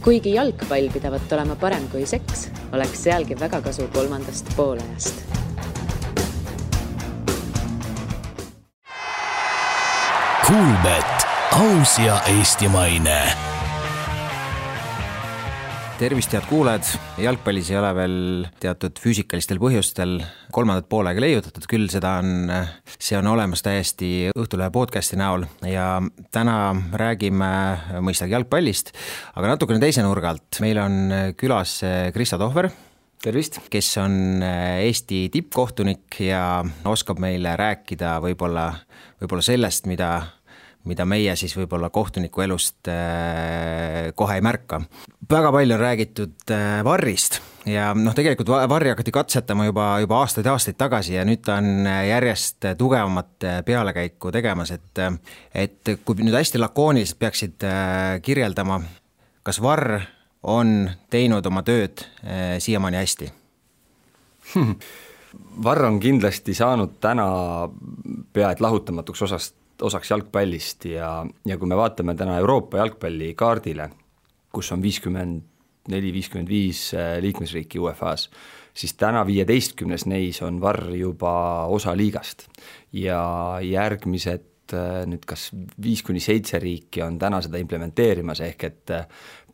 Kuigi jalgpall pidavat olema parem kui seks, oleks sealgi väga kasu kolmandast poolajast. Kuulbet, aus ja eestimaine. Tervist, head kuuled. Jalgpallis ei ole veel teatud füüsikalistel põhjustel kolmandat poolega leiutatud, küll see on olemas täiesti Õhtulehe podcasti näol ja täna räägime mõistagi jalgpallist, aga natukene teise nurga alt. Meil on külas Krista Tohver. Tervist! Kes on Eesti tippkohtunik ja oskab meile rääkida võib-olla sellest, mida meie siis võib-olla kohtuniku elust kohe ei märka. Väga palju on räägitud VAR-ist ja tegelikult VAR-i hakati katsetama juba aastaid tagasi ja nüüd ta on järjest tugevamat pealekäiku tegemas, et kui nüüd hästi lakooniliselt peaksid kirjeldama, kas VAR on teinud oma tööd siiamaani hästi? VAR on kindlasti saanud täna peaaegu lahutamatuks osaks jalgpallist ja kui me vaatame täna Euroopa jalgpalli kaardile, kus on 54-55 liikmesriiki UEFAs, siis täna 15 neis on VAR juba osa liigast ja järgmised nüüd kas 5-7 riiki on täna seda implementeerimas, ehk et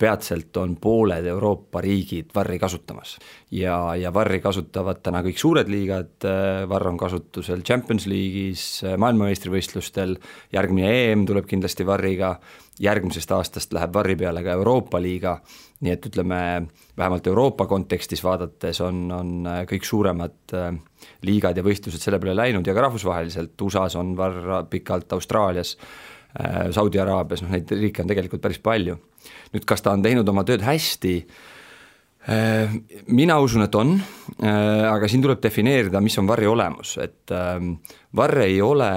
peatselt on pooled Euroopa riigid VAR-i kasutamas ja VAR-i kasutavad täna kõik suured liigad, VAR on kasutusel Champions League'is, maailmameistrivõistlustel, järgmine EM tuleb kindlasti VAR-iga, järgmisest aastast läheb VAR-i peale ka Euroopa liiga, nii et ütleme, vähemalt Euroopa kontekstis vaadates on kõik suuremad liigad ja võistlused selle peale läinud ja ka rahvusvaheliselt, USAs on VAR pikalt, Austraalias, Saudi-Araabias, neid riike on tegelikult päris palju. Nüüd, kas ta on teinud oma tööd hästi? Mina usun, et on, aga siin tuleb defineerida, mis on VAR-i olemus, et VAR ei ole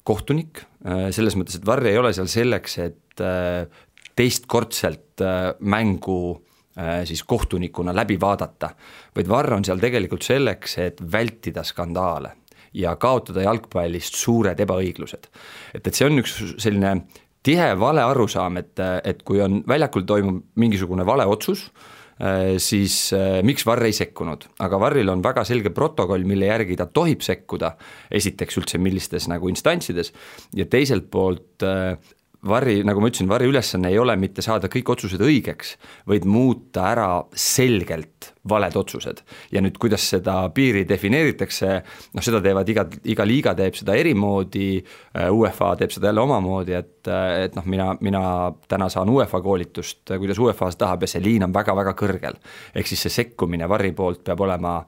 kohtunik, selles mõttes, et VAR ei ole seal selleks, et teistkordselt mängu siis kohtunikuna läbi vaadata, vaid VAR on seal tegelikult selleks, et vältida skandaale ja kaotada jalgpallist suured ebaõiglused. Et see on üks selline tihe vale arusaam, et kui on väljakul toimub mingisugune vale otsus, siis miks VAR ei sekkunud, aga VAR-il on väga selge protokoll, mille järgi ta tohib sekkuda, esiteks üldse millistes nagu instantsides ja teiselt poolt VAR-i, nagu ma ütlesin, VAR-i ülesanne ei ole mitte saada kõik otsused õigeks, vaid muuta ära selgelt valed otsused. Ja nüüd, kuidas seda piiri defineeritakse, seda teevad iga liiga teeb seda erimoodi, UEFA teeb seda jälle omamoodi, et mina täna saan UEFA koolitust, kuidas UEFA tahab ja see liin on väga-väga kõrgel. Ehk siis see sekkumine VAR-i poolt peab olema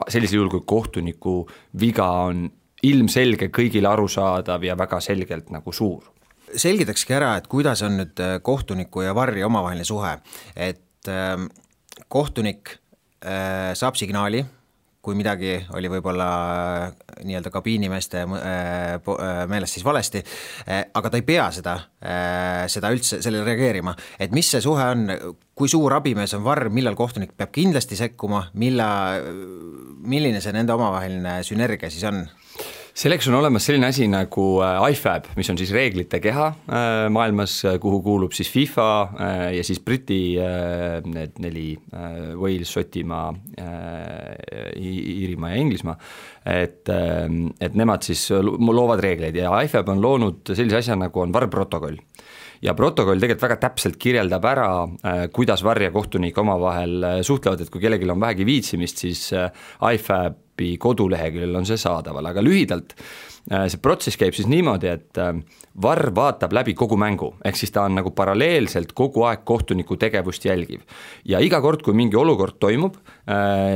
sellisel juhul, kui kohtuniku viga on ilmselge, kõigile arusaadav ja väga selgelt nagu suur. Selgitakski ära, et kuidas on nüüd kohtuniku ja VAR-i omavaheline suhe, et kohtunik saab signaali, kui midagi oli võib-olla nii-öelda kabiinimeeste meelest siis valesti, aga ta ei pea seda üldse sellele reageerima. Et mis see suhe on, kui suur abimees on VAR, millal kohtunik peab kindlasti sekkuma, milline see nende omavaheline sünergia siis on? Selleks on olemas selline asi nagu IFAB, mis on siis reeglite keha maailmas, kuhu kuulub siis FIFA ja siis Briti need 4 Wales, Šotimaa, Iirimaa ja Inglismaa, et nemad siis loovad reegleid ja IFAB on loonud sellise asja nagu on VAR-protokoll. Ja protokoll tegelikult väga täpselt kirjeldab ära, kuidas VAR ja kohtunik omavahel suhtlevad, et kui kellelgi on vähegi viitsimist, siis IFAB koduleheküljel on see saadaval, aga lühidalt see protsess käib siis niimoodi, et VAR vaatab läbi kogu mängu, ehk siis ta on nagu paralleelselt kogu aeg kohtuniku tegevust jälgiv ja iga kord, kui mingi olukord toimub,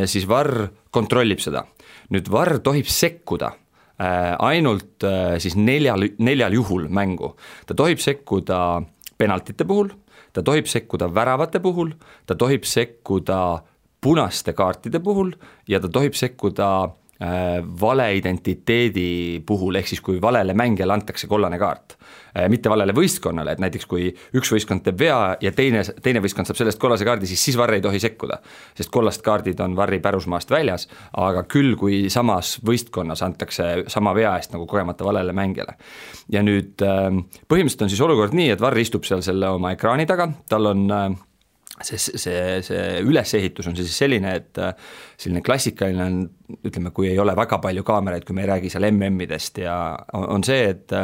siis VAR kontrollib seda. Nüüd VAR tohib sekkuda ainult siis neljal juhul mängu. Ta tohib sekkuda penaltite puhul, ta tohib sekkuda väravate puhul, ta tohib sekkuda punaste kaartide puhul ja ta tohib sekkuda vale identiteedi puhul, ehk siis kui valele mängijale antakse kollane kaart, mitte valele võistkonnale, et näiteks kui üks võistkond teeb vea ja teine võistkond saab sellest kollase kaardi, siis VAR ei tohi sekkuda, sest kollast kaardid on VAR-i pärusmaast väljas, aga küll kui samas võistkonnas antakse sama vea eest nagu kogemata valele mängijale. Ja nüüd põhimõtteliselt on siis olukord nii, et VAR istub seal selle oma ekraani taga, tal on see ülesehitus on siis selline, et selline klassikaline on, ütleme, kui ei ole väga palju kaameraid, kui me ei räägi seal MM-idest ja on see, et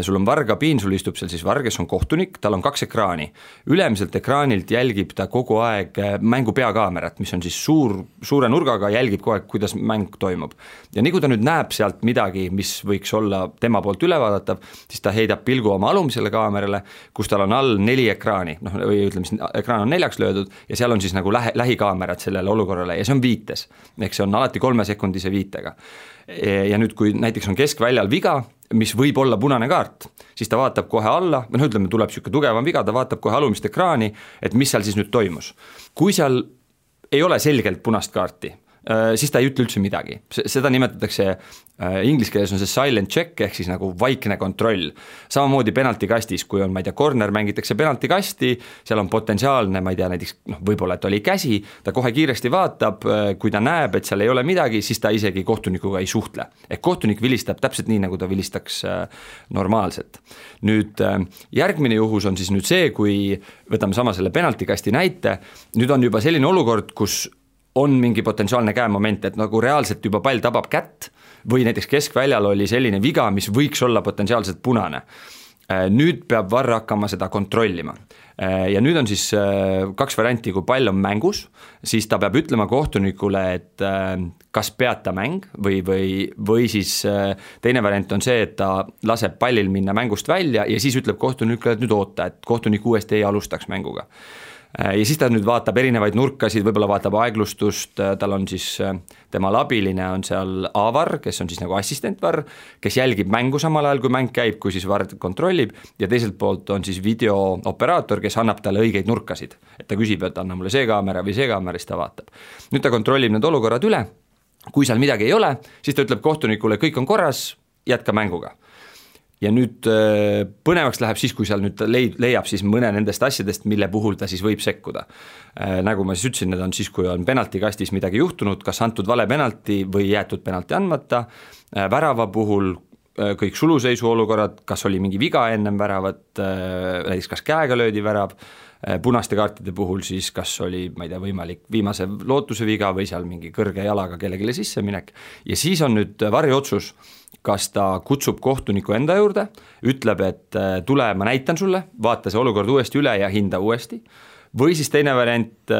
sul on vargabiin, sul istub seal siis varg, kes on kohtunik, tal on 2 ekraani. Ülemiselt ekraanilt jälgib ta kogu aeg mängu peakaamerat, mis on siis suure nurgaga, jälgib kogu aeg, kuidas mäng toimub. Ja nii kui ta nüüd näeb sealt midagi, mis võiks olla tema poolt ülevaadatav, siis ta heidab pilgu oma alumisele kaamerale, kus tal on all 4 ekraani, või ütleme, siis ekraan on 4 löödud ja seal on siis nagu lähikaamerad sellele olukorrale ja see on viites, ehk see on alati 3-sekundise viitega. Ja nüüd, kui näiteks on keskväljal viga, mis võib olla punane kaart, siis ta vaatab kohe alla, ütleme, tuleb siuke tugevam viga, ta vaatab kohe alumist ekraani, et mis seal siis nüüd toimus. Kui seal ei ole selgelt punast kaarti, siis ta ei ütle üldse midagi. Seda nimetatakse, inglise keeles on see silent check ehk siis nagu vaikne kontroll. Samamoodi penaltikastis, kui on, ma ei tea, corner mängitakse penaltikasti, seal on potentsiaalne, ma ei tea, näiteks võib-olla, et oli käsi, ta kohe kiiresti vaatab, kui ta näeb, et seal ei ole midagi, siis ta isegi kohtunikuga ei suhtle. Ehk kohtunik vilistab täpselt nii, nagu ta vilistaks normaalselt. Nüüd järgmine juhus on siis nüüd see, kui võtame sama selle penaltikasti näite, nüüd on juba selline olukord, kus on mingi potentsiaalne käemoment, et nagu reaalselt juba pall tabab kätt või näiteks keskväljal oli selline viga, mis võiks olla potentsiaalselt punane. Nüüd peab VAR hakkama seda kontrollima. Ja nüüd on siis 2 varianti, kui pall on mängus, siis ta peab ütlema kohtunikule, et kas peata mäng või siis teine variant on see, et ta laseb pallil minna mängust välja ja siis ütleb kohtunikule, et nüüd oota, et kohtunik uuesti ei alustaks mänguga. Ja siis ta nüüd vaatab erinevaid nurkasid, võib-olla vaatab aeglustust, tal on siis tema abiline on seal A-VAR, kes on siis nagu assistent-VAR, kes jälgib mängu samal ajal, kui mäng käib, kui siis VAR kontrollib ja teiselt poolt on siis videooperaator, kes annab talle õigeid nurkasid, et ta küsib, et anna mulle see kaamera või see kaamera, siis ta vaatab. Nüüd ta kontrollib need olukorrad üle, kui seal midagi ei ole, siis ta ütleb kohtunikule, kõik on korras, jätka mänguga. Ja nüüd põnevaks läheb siis, kui seal nüüd leiab siis mõne nendest asjadest, mille puhul ta siis võib sekkuda. Nagu ma siis ütlesin, need on siis, kui on penaltikastis midagi juhtunud, kas antud vale penalti või jäetud penalti andmata, värava puhul kõik suluseisu olukorrad, kas oli mingi viga ennem väravat, näiteks kas käega löödi värav, punaste kaartide puhul siis kas oli, ma ei tea, võimalik viimase lootuse viga või seal mingi kõrge jalaga kellelegi sisse minek ja siis on nüüd VAR-i otsus, kas ta kutsub kohtuniku enda juurde, ütleb, et tule, ma näitan sulle, vaata see olukord uuesti üle ja hinda uuesti, või siis teine variant,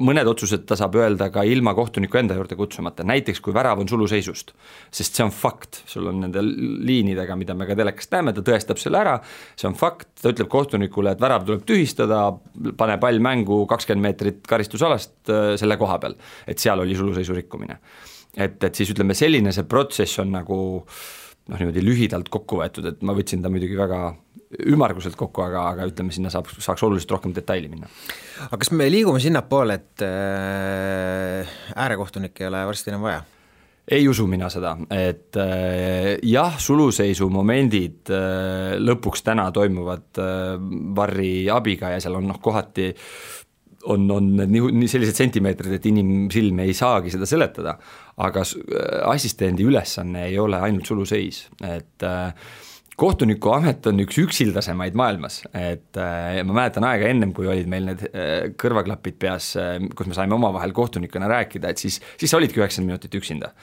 mõned otsused ta saab öelda ka ilma kohtuniku enda juurde kutsumata, näiteks kui värav on suluseisust, sest see on fakt, sul on nende liinidega, mida me ka telekast näeme, ta tõestab selle ära, see on fakt, ta ütleb kohtunikule, et värav tuleb tühistada, pane pall mängu 20 meetrit karistusalast selle koha peal, et seal oli suluseisu rikkumine. Et siis ütleme, selline see protsess on nagu niimoodi lühidalt kokku võetud, et ma võtsin ta muidugi väga ümarguselt kokku, aga ütleme, sinna saaks oluliselt rohkem detaili minna. Aga kas me liigume sinna poole, et äärekohtunik ei ole varsti enam vaja? Ei usu mina seda, et jah, suluseisu momendid lõpuks täna toimuvad VAR-i abiga ja seal on kohati on nii sellised sentimeetrid, et inimsilm ei saagi seda seletada, aga assistendi ülesanne ei ole ainult suluseis, et kohtuniku amet on üks üksildasemaid maailmas, et ma mäletan aega ennem, kui olid meil need kõrvaklapid peas, kus me saime omavahel kohtunikuna rääkida, et siis sa olidki 90 minutit üksinda.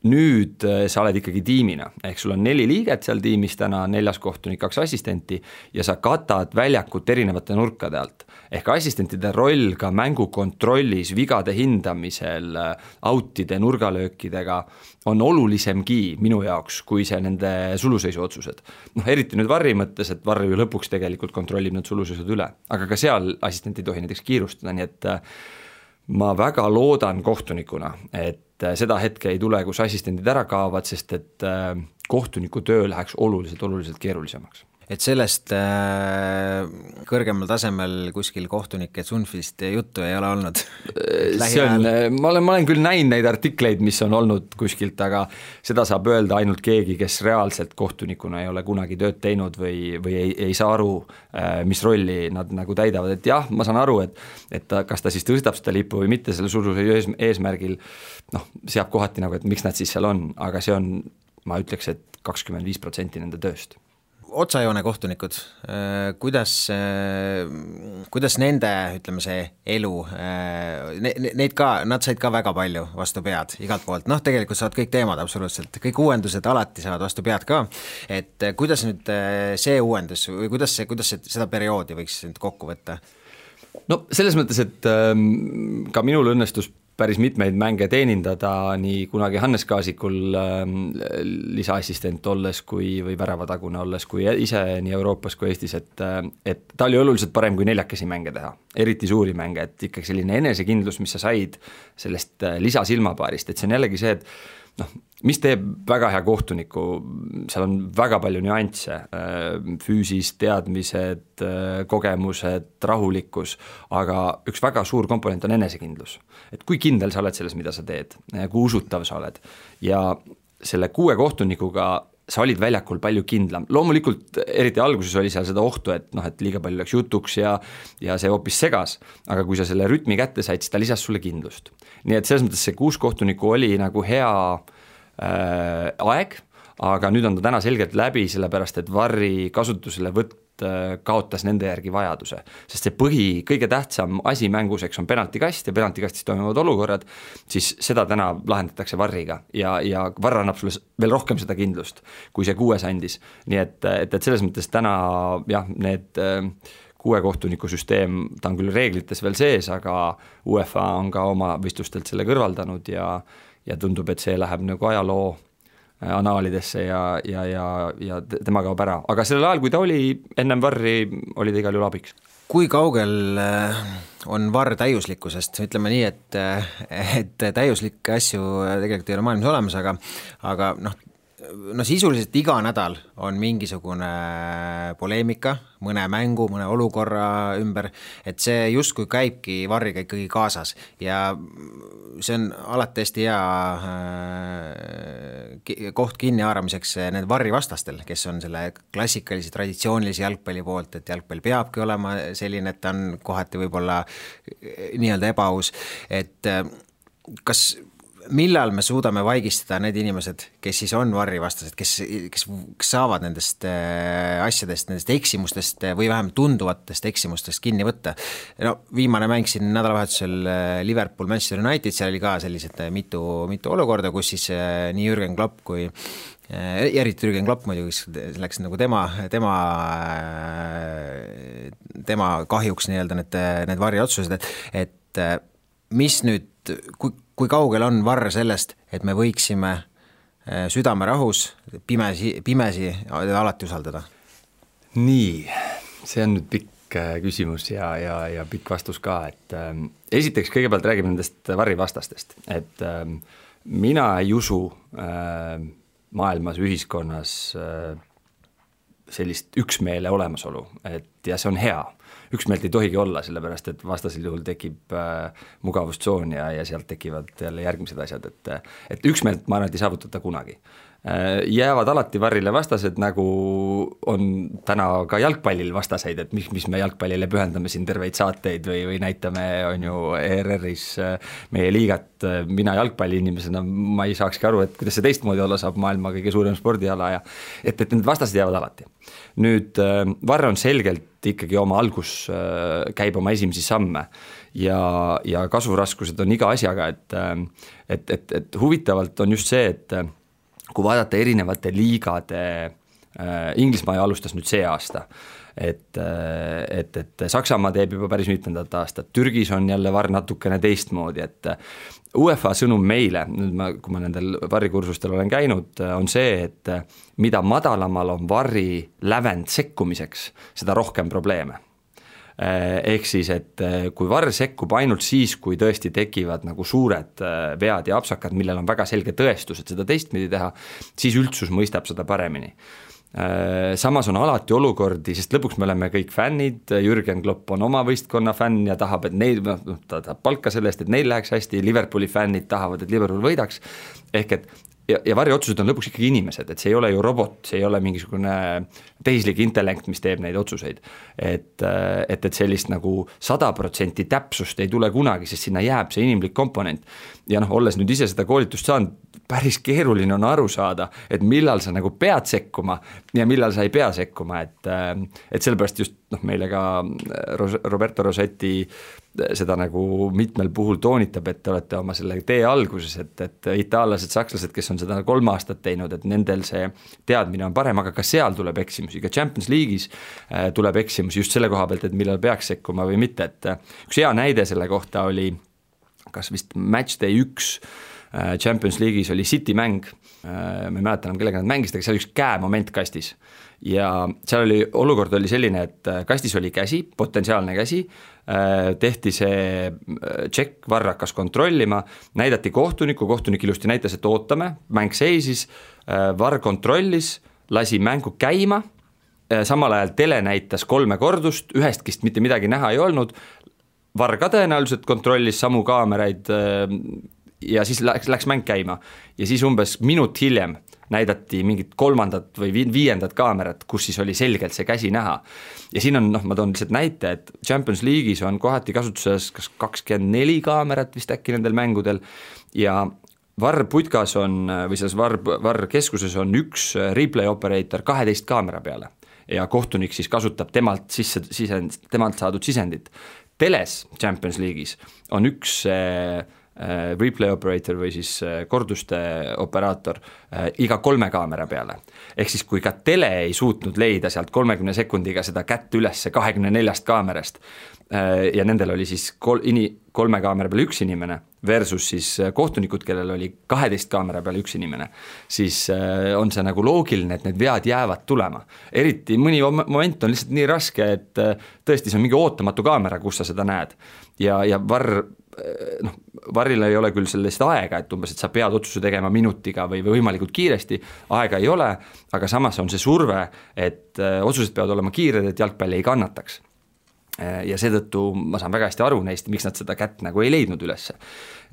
Nüüd sa oled ikkagi tiimina, ehk sul on 4 liiget seal tiimis täna, 4 kohtunik, 2 assistenti ja sa katad väljakut erinevate nurkade alt. Ehk assistentide roll ka mängukontrollis, vigade hindamisel, outide, nurgalöökidega on olulisemgi minu jaoks, kui see nende suluseisu otsused. Eriti nüüd VAR-i mõttes, et VAR ju lõpuks tegelikult kontrollib need suluseisud üle, aga ka seal assistent ei tohi näiteks kiirustada, nii et ma väga loodan kohtunikuna, et seda hetke ei tule, kus assistendid ära kaovad, sest et kohtuniku töö läheks oluliselt keerulisemaks. Et sellest kõrgemal tasemel kuskil kohtunike Sunfist juttu ei ole olnud? Ma olen küll näinud neid artikleid, mis on olnud kuskilt, aga seda saab öelda ainult keegi, kes reaalselt kohtunikuna ei ole kunagi tööd teinud või ei saa aru, mis rolli nad nagu täidavad. Et jah, ma saan aru, et kas ta siis tõstab seda lippu või mitte selle suluseisu eesmärgil, seab kohati nagu, et miks nad siis seal on, aga see on, ma ütleks, et 25% nende tööst. otsajoone kohtunikud, kuidas nende, ütleme see elu, nad said ka väga palju vastu pead igalt poolt, tegelikult saavad kõik teemad absoluutselt, kõik uuendused alati saavad vastu pead ka, et kuidas nüüd see uuendus või kuidas seda perioodi võiks nüüd kokku võtta? No selles mõttes, et ka minul õnnestus päris mitmeid mänge teenindada nii kunagi Hannes Kaasikul lisaassistent olles või väravatagune olles, kui ise nii Euroopas kui Eestis, et ta oli oluliselt parem kui 4 mänge teha, eriti suuri mänge, et ikkagi selline enesekindlus, mis sa said sellest lisasilmapaarist, et see on jällegi see, et mis teeb väga hea kohtuniku, seal on väga palju nüansse, füüsist, teadmised, kogemused, rahulikkus, aga üks väga suur komponent on enesekindlus. Et kui kindel sa oled selles, mida sa teed, kui usutav sa oled ja selle 6 kohtunikuga sa olid väljakul palju kindlam. Loomulikult eriti alguses oli seal seda ohtu, et liiga palju läks jutuks ja see hoopis segas, aga kui sa selle rütmi kätte said, siis ta lisas sulle kindlust. Nii et selles mõttes see 6 kohtunikku oli nagu hea aeg, aga nüüd on ta täna selgelt läbi, sellepärast et VAR-i kasutuselevõtt kaotas nende järgi vajaduse, sest see kõige tähtsam asi mänguseks on penaltikast ja penaltikastis toimuvad olukorrad, siis seda täna lahendatakse VAR-iga ja VAR annab sulle veel rohkem seda kindlust, kui see 6 andis. Nii et selles mõttes täna need 6 kohtuniku süsteem, ta on küll reeglites veel sees, aga UEFA on ka oma võistlustelt selle kõrvaldanud ja tundub, et see läheb nagu ajaloo anaalidesse ja tema kaob ära. Aga sellel ajal, kui ta oli ennem VAR-i, oli ta igal juhul abiks. Kui kaugel on VAR täiuslikkusest? Ütleme nii, et täiuslikke asju tegelikult ei ole maailmas olemas, aga sisuliselt iga nädal on mingisugune poleemika, mõne mängu, mõne olukorra ümber, et see justkui käibki VAR-iga ikkagi kaasas ja see on alati hästi hea koht kinni haaramiseks need VAR-i vastastel, kes on selle klassikalise traditsioonilise jalgpalli poolt, et jalgpall peabki olema selline, et ta on kohati võib-olla nii-öelda ebaaus, et millal me suudame vaigistada need inimesed, kes siis on VAR-i vastased, kes saavad nendest asjadest, nendest eksimustest või vähemalt tunduvatest eksimustest kinni võtta. Viimane mäng siin nädalavahetusel Liverpool, Manchester United, seal oli ka sellised mitu olukorda, kus siis nii Jürgen Klopp kui eriti Jürgen Klopp muidugi, kes läks nagu tema kahjuks nii-öelda need VAR-i otsused, et mis nüüd, kui kaugel on VAR sellest, et me võiksime südame rahus pimesi alati usaldada? Nii, see on nüüd pikk küsimus ja pikk vastus ka, et esiteks kõigepealt räägime nendest VAR-i vastastest, et mina ei usu maailmas, ühiskonnas sellist üksmeele olemasolu, ja see on hea. Üksmeelt ei tohigi olla, sellepärast et vastasel juhul tekib mugavustsoon ja sealt tekivad jälle järgmised asjad, et üksmeelt ma arvan, et ei saavutata kunagi. Jäävad alati VAR-ile vastased, nagu on täna ka jalgpallil vastaseid, et mis me jalgpallile pühendame siin terveid saateid või näitame, on ju ERR-is meie liigat, mina jalgpalliinimesena, ma ei saakski aru, et kuidas see teistmoodi olla saab, maailma kõige suurem spordiala ja et need vastased jäävad alati. Nüüd VAR on selgelt ikkagi oma algus käib oma esimesi samme ja kasvuraskused on iga asjaga, et huvitavalt on just see, et kui vaadata erinevate liigade, Inglismaa alustas nüüd see aasta, et Saksamaa teeb juba päris mitmendat aastat, Türgis on jälle VAR natukene teistmoodi, et UEFA sõnum meile, nüüd kui ma nendel VAR-i kursustel olen käinud, on see, et mida madalamal on VAR-i lävend sekkumiseks, seda rohkem probleeme. Ehk siis, et kui VAR sekkub ainult siis, kui tõesti tekivad nagu suured vead ja apsakad, millel on väga selge tõestus, et seda teistmidi teha, siis üldsus mõistab seda paremini. Samas on alati olukordi, sest lõpuks me oleme kõik fännid, Jürgen Klopp on oma võistkonna fänn ja tahab, et neil, ta tahab palka sellest, et neil läheks hästi, Liverpooli fännid tahavad, et Liverpool võidaks, ehk et ja varriotsused on lõpuks ikkagi inimesed, et see ei ole ju robot, see ei ole mingisugune tehislik intellekt, mis teeb neid otsuseid. Et sellist nagu 100% täpsust ei tule kunagi, sest sinna jääb see inimlik komponent. Ja olles nüüd ise seda koolitust saanud, päris keeruline on aru saada, et millal sa nagu pead sekkuma ja millal sa ei pea sekkuma, et sellepärast just meile ka Roberto Rossetti seda nagu mitmel puhul toonitab, et te olete oma selle tee alguses, et itaallased, sakslased, kes on seda 3 aastat teinud, et nendel see teadmine on parem, aga ka seal tuleb eksimusi, ka Champions League'is tuleb eksimusi just selle koha pealt, et millal peaks sekkuma või mitte, et üks hea näide selle kohta oli kas vist Matchday 1 Champions League'is oli City mäng, ma ei mäleta enam kellega nad mängisid, aga seal üks käemoment kastis ja seal oli, olukord oli selline, et kastis oli käsi, potentsiaalne käsi, tehti see check, VAR hakkas kontrollima, näidati kohtunik ilusti näitas, et ootame, mäng seisis, VAR kontrollis, lasi mängu käima, samal ajal tele näitas 3 kordust, ühestkist mitte midagi näha ei olnud, VAR ka tõenäoliselt kontrollis samu kaameraid ja siis läks mäng käima ja siis umbes minut hiljem näidati mingit 3. või 5. kaamerat, kus siis oli selgelt see käsi näha. Ja siin on, ma toon lihtsalt näite, et Champions League'is on kohati kasutuses kas 24 kaamerat vist äkki nendel mängudel ja VAR putkas on, või selles VAR keskuses on üks replay operator 12 kaamera peale ja kohtunik siis kasutab temalt saadud sisendit. Teles Champions League'is on üks replay operator või siis korduste operaator iga 3 kaamera peale. Ehk siis kui ka tele ei suutnud leida sealt 30 sekundiga seda kätt üles 24 kaamerast ja nendel oli siis 3 kaamera peale 1 inimene versus siis kohtunikud, kellel oli 12 kaamera peale 1 inimene, siis on see nagu loogiline, et need vead jäävad tulema. Eriti mõni moment on lihtsalt nii raske, et tõesti see on mingi ootamatu kaamera, kus sa seda näed ja VARil ei ole küll sellest aega, et umbes, et sa pead otsuse tegema minutiga või võimalikult kiiresti, aega ei ole, aga samas on see surve, et otsused peavad olema kiired, et jalgpalli ei kannataks. Ja seetõttu ma saan väga hästi aru neist, miks nad seda kätt nagu ei leidnud ülesse.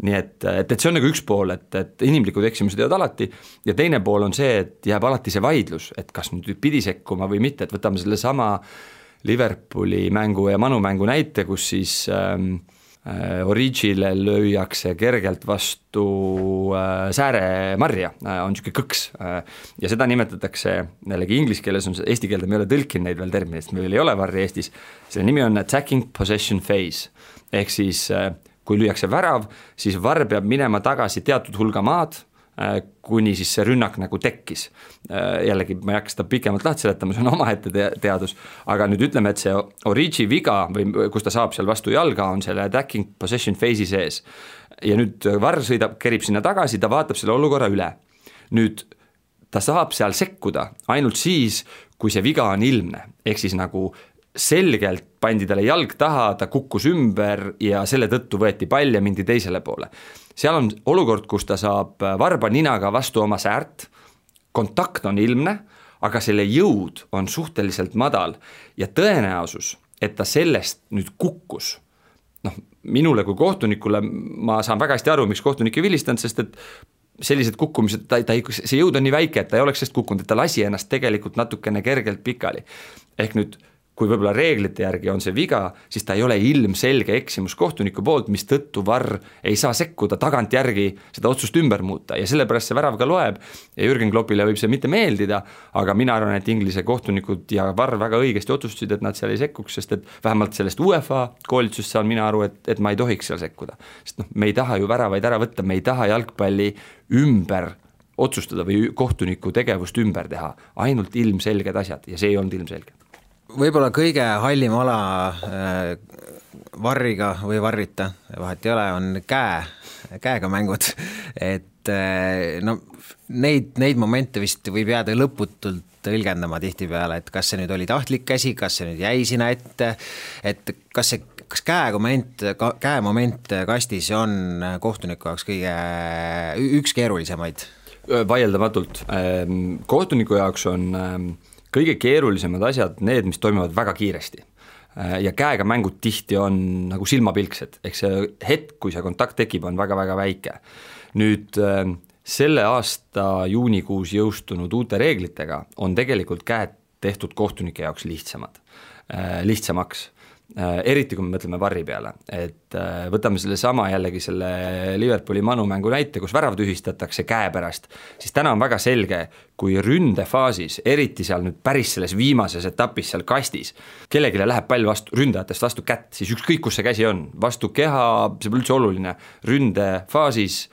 Nii et see on nagu üks pool, et inimlikud eksimused jäävad alati ja teine pool on see, et jääb alati see vaidlus, et kas nüüd pidi sekkuma või mitte, et võtame selle sama Liverpooli mängu ja Manu mängu näite, kus siis Origile lüüakse kergelt vastu sääremarja, on niisugune kõks ja seda nimetatakse, jällegi inglise keeles on see, eesti keelde me ei ole tõlkinud neid veel terminist, meil ei ole varri Eestis, selle nimi on attacking possession phase, ehk siis kui lüüakse värav, siis VAR peab minema tagasi teatud hulga maad, kuni siis see rünnak nagu tekkis. Jällegi ma ei hakka seda pikemalt lahti seletama, see on omaette teadus, aga nüüd ütleme, et see Origi viga või kus ta saab seal vastu jalga, on selle attacking possession phase'i sees. Ja nüüd VAR kerib sinna tagasi, ta vaatab selle olukorra üle. Nüüd ta saab seal sekkuda ainult siis, kui see viga on ilmne, ehk siis nagu selgelt pandi talle jalg taha, ta kukkus ümber ja selle tõttu võeti pall ja mindi teisele poole. Seal on olukord, kus ta saab varba ninaga vastu oma säärt, kontakt on ilmne, aga selle jõud on suhteliselt madal ja tõenäosus, et ta sellest nüüd kukkus. Minule kui kohtunikule ma saan väga hästi aru, miks kohtunik ei vilistanud, sest et sellised kukkumised, see jõud on nii väike, et ta ei oleks sellest kukkunud, et ta lasi ennast tegelikult natukene kergelt pikali. Ehk nüüd kui võib-olla reeglite järgi on see viga, siis ta ei ole ilmselge eksimus kohtuniku poolt, mis tõttu VAR ei saa sekkuda tagant järgi seda otsust ümber muuta ja sellepärast see värav ka loeb ja Jürgen Kloppile võib see mitte meeldida, aga mina arvan, et Inglise kohtunikud ja VAR väga õigesti otsustasid, et nad seal ei sekkuks, sest et vähemalt sellest UEFA koolitusest saan mina aru, et ma ei tohiks seal sekkuda. Sest me ei taha ju väravaid ära võtta, me ei taha jalgpalli ümber otsustada või kohtuniku tegevust ümber teha, ainult ilmselged asjad ja see ei olnud ilmselge. Võib-olla kõige hallim ala varriga või varrita, vahet ei ole, on käega mängud, et neid momente vist võib jääda lõputult tõlgendama tihtipeale, et kas see nüüd oli tahtlik käsi, kas see nüüd jäi sinna ette, et kas käemoment kastis on kohtuniku jaoks üks keerulisemaid? Vaieldamatult. Kohtuniku jaoks on kõige keerulisemad asjad need, mis toimuvad väga kiiresti ja käega mängud tihti on nagu silmapilksed, ehk see hetk, kui see kontakt tekib, on väga-väga väike. Nüüd selle aasta juunikuus jõustunud uute reeglitega on tegelikult käed tehtud kohtunike jaoks lihtsamaks. Eriti kui me mõtleme VAR-i peale, et võtame selle sama jällegi selle Liverpooli Manu mängu näite, kus värav tühistatakse käe pärast, siis täna on väga selge, kui ründefaasis, eriti seal nüüd päris selles viimases etapis seal kastis, kellegile läheb pall vastu, ründajatest vastu kätt, siis ükskõik kus see käsi on, vastu keha, see pole üldse oluline, ründefaasis,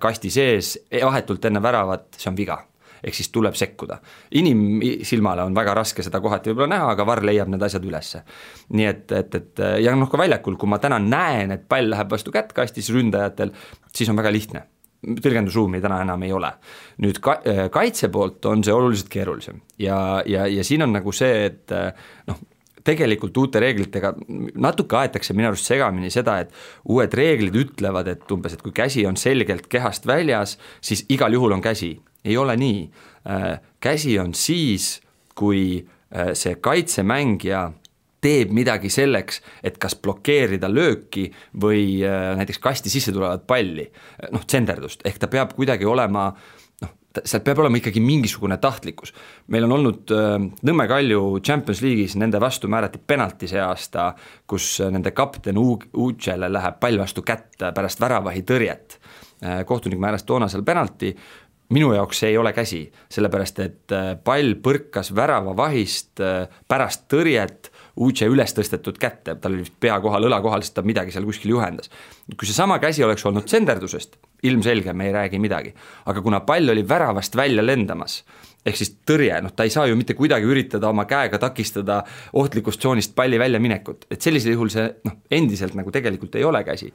kasti sees, vahetult enne väravat, see on viga. Ehk siis tuleb sekkuda. Inimsilmale on väga raske seda kohati võib-olla näha, aga VAR leiab need asjad ülesse. Nii et ja ka väljakul, kui ma täna näen, et pall läheb vastu kätt kastis ründajatel, siis on väga lihtne. Tõlgendusruumi täna enam ei ole. Nüüd kaitse poolt on see oluliselt keerulisem ja siin on nagu see, et tegelikult uute reeglitega natuke aetakse minu arust segamini seda, et uued reeglid ütlevad, et umbes, et kui käsi on selgelt kehast väljas, siis igal juhul on käsi. Ei ole nii. Käsi on siis, kui see kaitsemängija teeb midagi selleks, et kas blokeerida lööki või näiteks kasti sisse tulevad palli, tsenderdust, ehk ta peab kuidagi olema, seal peab olema ikkagi mingisugune tahtlikkus. Meil on olnud Nõmme Kalju Champions League'is, nende vastu määrati penalti see aasta, kus nende kapten Ucele läheb pall vastu kätt pärast väravahi tõrjet. Kohtunik määras toona seal penalti, minu jaoks see ei ole käsi, sellepärast et pall põrkas värava vahist pärast tõrjet Uce üles tõstetud kätte, tal oli pea kohal, õla kohal, sest ta midagi seal kuskil juhendas. Kui see sama käsi oleks olnud tsenderdusest, ilmselge, me ei räägi midagi, aga kuna pall oli väravast välja lendamas, ehk siis tõrje, ta ei saa ju mitte kuidagi üritada oma käega takistada ohtlikust tsoonist palli välja minekut, et sellisel juhul see endiselt nagu tegelikult ei ole käsi.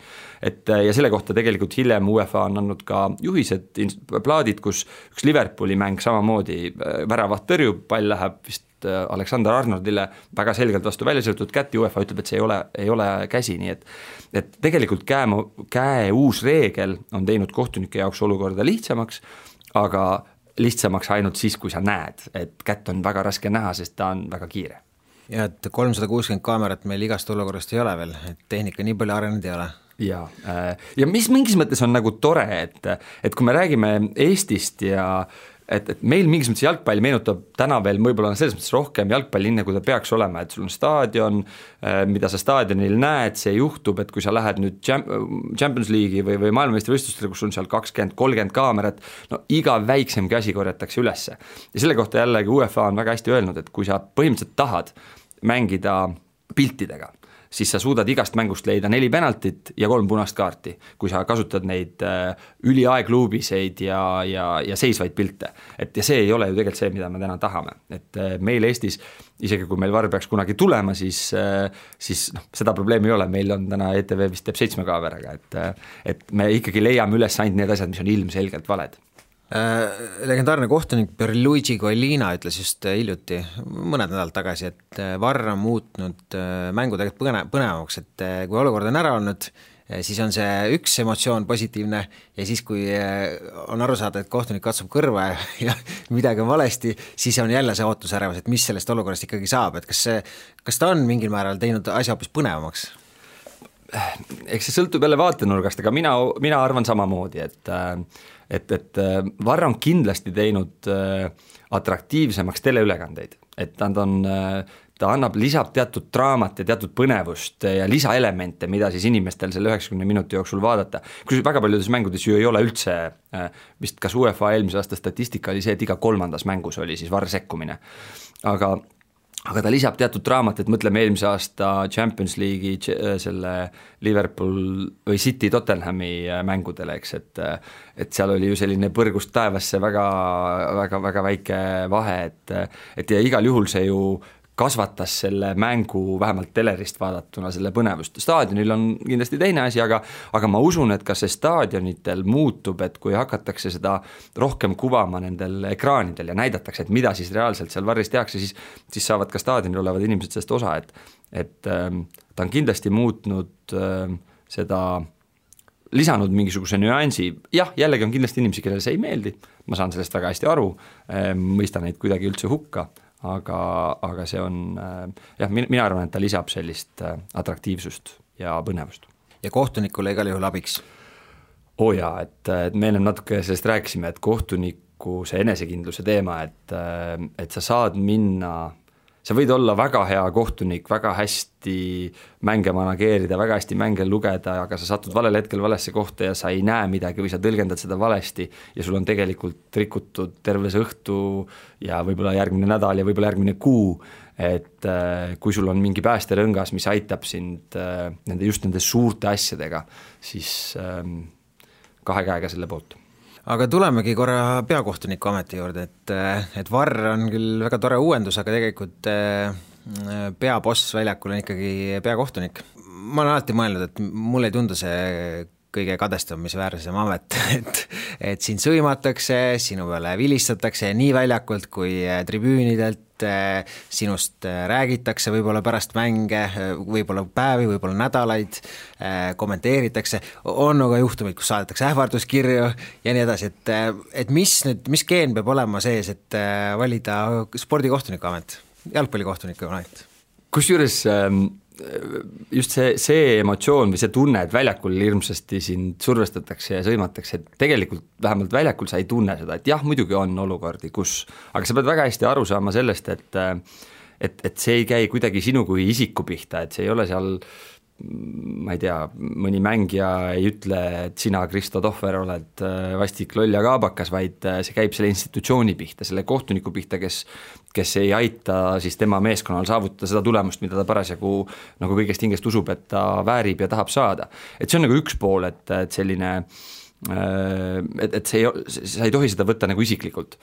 Ja selle kohta tegelikult hiljem UEFA on andnud ka juhised, plaadid, kus üks Liverpooli mäng samamoodi väravat tõrjub, pall läheb vist Alexander Arnoldile väga selgelt vastu välja sõltud kätt, UEFA ütleb, et see ei ole käsi, nii et tegelikult käe uus reegel on teinud kohtunike jaoks olukorda lihtsamaks, aga lihtsamaks ainult siis, kui sa näed, et kätt on väga raske näha, sest ta on väga kiire. Ja et 360 kaamerat meil igast olukorrast ei ole veel, et tehnika nii palju arenenud ei ole. Ja mis mingis mõttes on nagu tore, et kui me räägime Eestist ja et meil mingis mõttes jalgpall meenutab täna veel võib-olla selles mõttes rohkem jalgpallinne, kui ta peaks olema, et sul on staadion, mida sa staadionil näed, see juhtub, et kui sa lähed nüüd Champions League'i või maailmameistrivõistlustele, kus on seal 20-30 kaamerat, iga väiksemgi asi korjatakse ülesse. Ja selle kohta jällegi UEFA on väga hästi öelnud, et kui sa põhimõtteliselt tahad mängida piltidega, siis sa suudad igast mängust leida 4 penaltit ja 3 punast kaarti, kui sa kasutad neid üliaegluubiseid ja seisvaid pilte. Ja see ei ole ju tegelikult see, mida me täna tahame. Et meil Eestis, isegi kui meil VAR peaks kunagi tulema, siis seda probleemi ei ole. Meil on täna ETV vist teeb 7 kaameraga, et me ikkagi leiame üles ainult need asjad, mis on ilmselgelt valed. Legendaarne kohtunik Pierluigi Collina ütles just hiljuti, mõned nädalad tagasi, et VAR on muutnud mängu tegelikult põnevamaks, et kui olukord on ära olnud, siis on see üks emotsioon positiivne ja siis, kui on aru saada, et kohtunik katsub kõrva ja midagi on valesti, siis on jälle see ootusärevus, et mis sellest olukorrast ikkagi saab, et kas ta on mingil määral teinud asja hoopis põnevamaks? Eks see sõltub jälle vaatenurgast, aga mina arvan samamoodi, et VAR on kindlasti teinud atraktiivsemaks teleülekandeid, et ta lisab teatud draamat ja teatud põnevust ja lisaelemente, mida siis inimestel selle 90 minuti jooksul vaadata. Kui väga paljudes mängudes ju ei ole üldse, vist kas UEFA eelmise aasta statistika oli see, et iga 3. mängus oli siis VAR sekkumine, aga ta lisab teatud draamat, et mõtleme eelmise aasta Champions League'i selle Liverpool või City Tottenhami mängudele, eks, et seal oli ju selline põrgust taevasse väga, väga, väga väike vahe, et ja igal juhul see ju kasvatas selle mängu vähemalt telerist vaadatuna selle põnevust. Staadionil on kindlasti teine asi, aga ma usun, et ka see staadionitel muutub, et kui hakatakse seda rohkem kuvama nendel ekraanidel ja näidatakse, et mida siis reaalselt seal VAR-is tehakse, siis saavad ka staadionil olevad inimesed sellest osa, et ta on kindlasti muutnud seda, lisanud mingisuguse nüansi. Jah, jällegi on kindlasti inimesi, kellele see ei meeldi, ma saan sellest väga hästi aru, mõistan neid kuidagi üldse hukka, aga see on, mina arvan, et ta lisab sellist atraktiivsust ja põnevust. Ja kohtunikule igal juhul abiks? et me ennem natuke sellest rääkisime, et kohtuniku see enesekindluse teema, et sa saad minna, sa võid olla väga hea kohtunik, väga hästi mänge manageerida, väga hästi mänge lugeda, aga sa satud valel hetkel valesse kohta ja sa ei näe midagi või sa tõlgendad seda valesti ja sul on tegelikult rikutud terve see õhtu ja võib-olla järgmine nädal ja võib-olla järgmine kuu, et kui sul on mingi päästerõngas, mis aitab sind nende suurte asjadega, siis kahe käega selle poolt. Aga tulemegi korra peakohtuniku ameti juurde, et VAR on küll väga tore uuendus, aga tegelikult peaboss väljakul on ikkagi peakohtunik. Ma olen alati mõelnud, et mulle ei tundu see kõige kadestamisväärsem amet, et sind sõimatakse, sinu peale vilistatakse nii väljakult kui tribüünidelt, sinust räägitakse võib-olla pärast mänge, võib-olla päevi, võib-olla nädalaid, kommenteeritakse, on aga juhtumid, kus saadetakse ähvarduskirju ja nii edasi, et mis geen peab olema sees, et valida spordikohtuniku amet, jalgpallikohtuniku amet? Kusjuures just see emotsioon või see tunne, et väljakul hirmsasti sind survestatakse ja sõimatakse, et tegelikult vähemalt väljakul sa ei tunne seda, et jah, muidugi on olukordi, aga sa pead väga hästi aru saama sellest, et see ei käi kuidagi sinu kui isiku pihta, et see ei ole seal, ma ei tea, mõni mängija ei ütle, et sina, Kristo Tohver, oled vastik loll ja kaabakas, vaid see käib selle institutsiooni pihta, selle kohtuniku pihta, kes ei aita siis tema meeskonnal saavutada seda tulemust, mida ta parasjagu nagu kõigest hingest usub, et ta väärib ja tahab saada. Et see on nagu üks pool, et selline, et sa ei tohi seda võtta nagu isiklikult,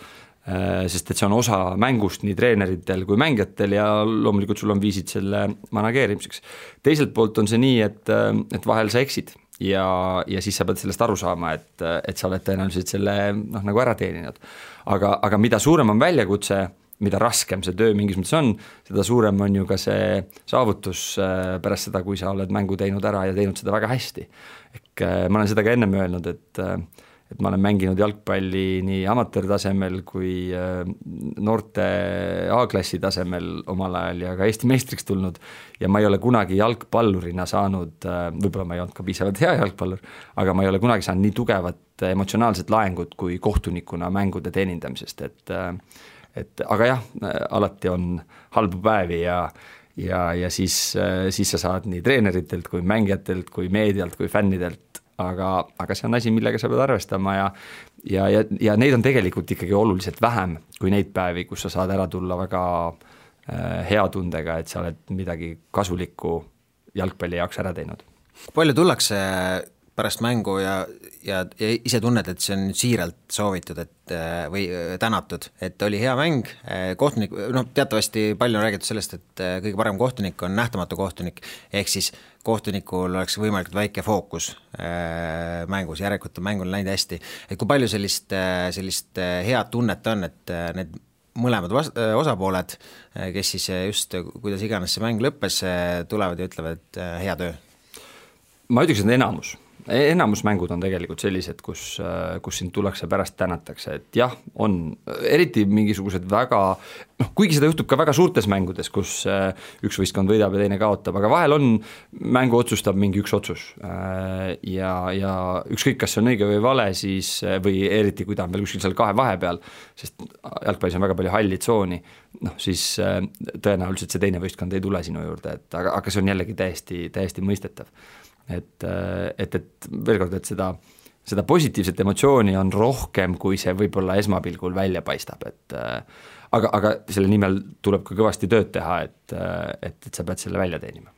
sest et see on osa mängust nii treeneritel kui mängijatel ja loomulikult sul on viisid selle manageerimiseks. Teiselt poolt on see nii, et vahel sa eksid ja siis sa pead sellest aru saama, et sa oled tõenäoliselt selle nagu ära teeninud. Aga mida suurem on väljakutse, mida raskem see töö mingis mõttes on, seda suurem on ju ka see saavutus pärast seda, kui sa oled mängu teinud ära ja teinud seda väga hästi. Ma olen seda ka ennem öelnud, et ma olen mänginud jalgpalli nii amatöörtasemel kui noorte A-klassi tasemel omal ajal ja ka Eesti meistriks tulnud ja ma ei ole kunagi jalgpallurina saanud, võib-olla ma ei olnud ka piisavalt hea jalgpallur, aga ma ei ole kunagi saanud nii tugevat emotsionaalset laengut kui kohtunikuna mängude teenindamisest, aga jah, alati on halbu päevi ja siis sa saad nii treeneritelt kui mängijatelt kui meedialt kui fännidelt, aga see on asi, millega sa pead arvestama ja neid on tegelikult ikkagi oluliselt vähem kui neid päevi, kus sa saad ära tulla väga hea tundega, et sa oled midagi kasulikku jalgpalli jaoks ära teinud. Palju tullakse pärast mängu ja ise tunned, et see on siiralt soovitud või tänatud, et oli hea mäng, kohtunik, teatavasti palju on räägitud sellest, et kõige parem kohtunik on nähtamatu kohtunik, ehk siis kohtunikul oleks võimalikult väike fookus mängus, järelikult on mängul läinud hästi, et kui palju sellist head tunnet on, et need mõlemad osapooled, kes siis just, kuidas iganes see mäng lõppes, tulevad ja ütlevad, et hea töö? Ma ütleks, et enamus mängud on tegelikult sellised, kus sind tullakse pärast tänatakse, et jah, on eriti mingisugused väga, kuigi seda juhtub ka väga suurtes mängudes, kus üks võistkond võidab ja teine kaotab, aga vahel mängu otsustab mingi üks otsus ja ükskõik, kas see on õige või vale, siis, või eriti kui ta on veel kuskil seal kahe vahepeal, sest jalgpallis on väga palju halli tsooni, siis tõenäoliselt see teine võistkond ei tule sinu juurde, aga see on jällegi täiesti mõistetav. Et veel kord, et seda positiivset emotsiooni on rohkem, kui see võib-olla esmapilgul välja paistab, aga selle nimel tuleb ka kõvasti tööd teha, et sa pead selle välja teenima.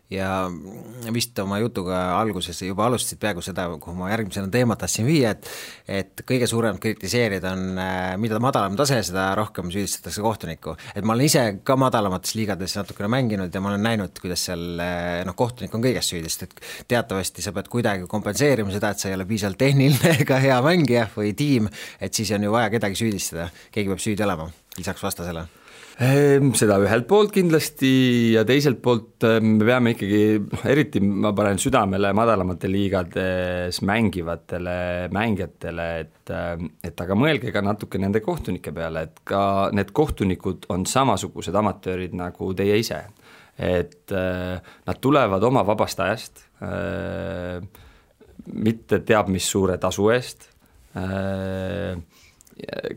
Ja vist oma jutuga alguses juba alustasid peaaegu seda, kuhu ma järgmisena teemat tahtsin viia, et kõige suurem kritiseerida on, mida madalam tase, seda rohkem süüdistatakse kohtunikku. Et ma olen ise ka madalamates liigades natukene mänginud ja ma olen näinud, kuidas seal kohtunik on kõigest süüdist, et teatavasti sa pead kuidagi kompenseerima seda, et sa ei ole piisavalt tehniline ega hea mängija või tiim, et siis on ju vaja kedagi süüdistada, keegi peab süüdi olema, lisaks vastasele. Seda ühelt poolt kindlasti ja teiselt poolt me peame ikkagi, eriti ma panen südamele madalamate liigades mängivatele mängijatele, et aga mõelge ka natuke nende kohtunike peale, et ka need kohtunikud on samasugused amatöörid nagu teie ise, et nad tulevad oma vabast ajast, mitte teab mis suure tasu eest,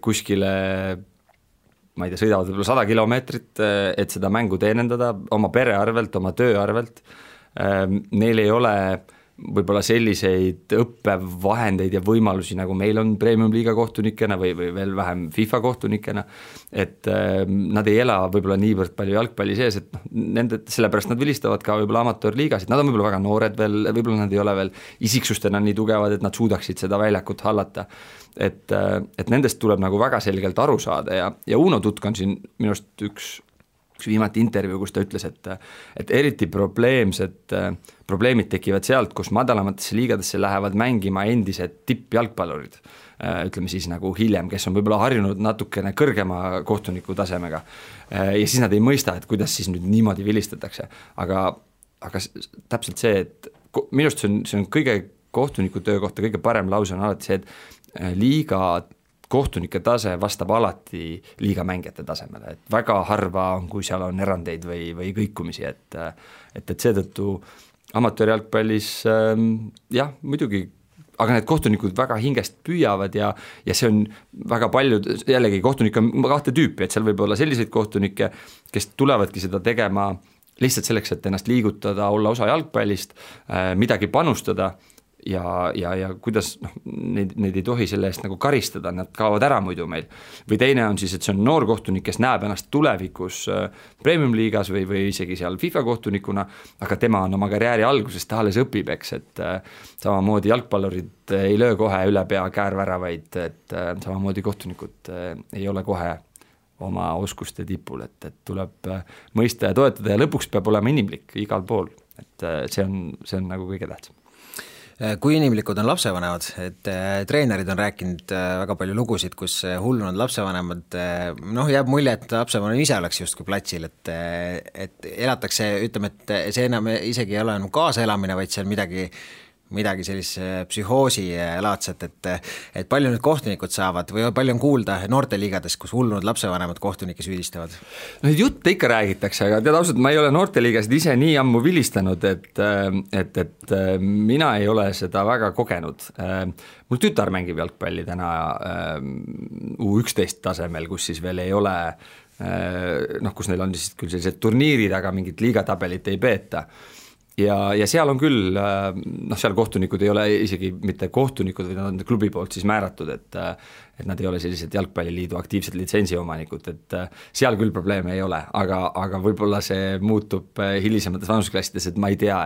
kuskile ma ei tea, sõidavad võib-olla 100 kilomeetrit, et seda mängu teenendada oma pere arvelt, oma töö arvelt. Neil ei ole võib-olla selliseid õppevahendeid ja võimalusi, nagu meil on Premium-liiga kohtunikena või veel vähem FIFA kohtunikena, et nad ei ela võib-olla niivõrd palju jalgpalli sees, et sellepärast nad vilistavad ka võib-olla amatöörliigasid, nad on võib-olla väga noored veel, võib-olla nad ei ole veel isiksustena nii tugevad, et nad suudaksid seda väljakut hallata. Et nendest tuleb nagu väga selgelt aru saada ja Uno Tutk on siin minu arust üks viimati intervjuu, kus ta ütles, et eriti probleemid tekivad sealt, kus madalamatesse liigadesse lähevad mängima endised tippjalgpallurid, ütleme siis nagu hiljem, kes on võib-olla harjunud natukene kõrgema kohtuniku tasemega ja siis nad ei mõista, et kuidas siis nüüd niimoodi vilistatakse, aga täpselt see, et minu arust see on kõige kohtuniku töö kohta kõige parem lause on alati see, et liiga kohtunike tase vastab alati liiga mängijate tasemele, et väga harva on, kui seal on erandeid või kõikumisi, et seetõttu amatöörjalgpallis jah, muidugi, aga need kohtunikud väga hingest püüavad ja see on väga palju, jällegi kohtunik on kahte tüüpi, et seal võib olla selliseid kohtunikke, kes tulevadki seda tegema lihtsalt selleks, et ennast liigutada, olla osa jalgpallist, midagi panustada ja kuidas neid ei tohi selle eest nagu karistada, nad kaovad ära muidu meil. Või teine on siis, et see on noor kohtunik, kes näeb ennast tulevikus Premium-liigas või isegi seal FIFA kohtunikuna, aga tema on oma karjääri alguses, ta alles õpib, eks, et samamoodi jalgpallurid ei löö kohe üle pea käärväravaid, et samamoodi kohtunikud ei ole kohe oma oskuste tipul, et tuleb mõista ja toetada ja lõpuks peab olema inimlik igal pool, et see on nagu kõige tähtsam. Kui inimlikud on lapsevanemad, et treenerid on rääkinud väga palju lugusid, kus hullunud lapsevanemad, jääb mulje, et lapsevanem ise oleks justkui platsil, et elatakse, ütleme, et see enam isegi ei ole enam kaasaelamine, vaid see on midagi sellise psühhoosi laadset, et palju nüüd kohtunikud saavad või palju on kuulda noorteliigades, kus hullunud lapsevanemad kohtunikke süüdistavad? Neid jutte ikka räägitakse, aga tead ausalt, ma ei ole noorteliigasid ise nii ammu vilistanud, et mina ei ole seda väga kogenud. Mul tütar mängib jalgpalli täna U11 tasemel, kus siis veel ei ole, kus neil on siis küll sellised turniirid, aga mingit liigatabelit ei peeta. Ja seal on küll, seal kohtunikud ei ole isegi mitte kohtunikud, või nad on klubi poolt siis määratud, et nad ei ole sellised jalgpalliliidu aktiivsed litsentsiomanikud, et seal küll probleeme ei ole, aga võib-olla see muutub hilisemates vanusklassides, et ma ei tea,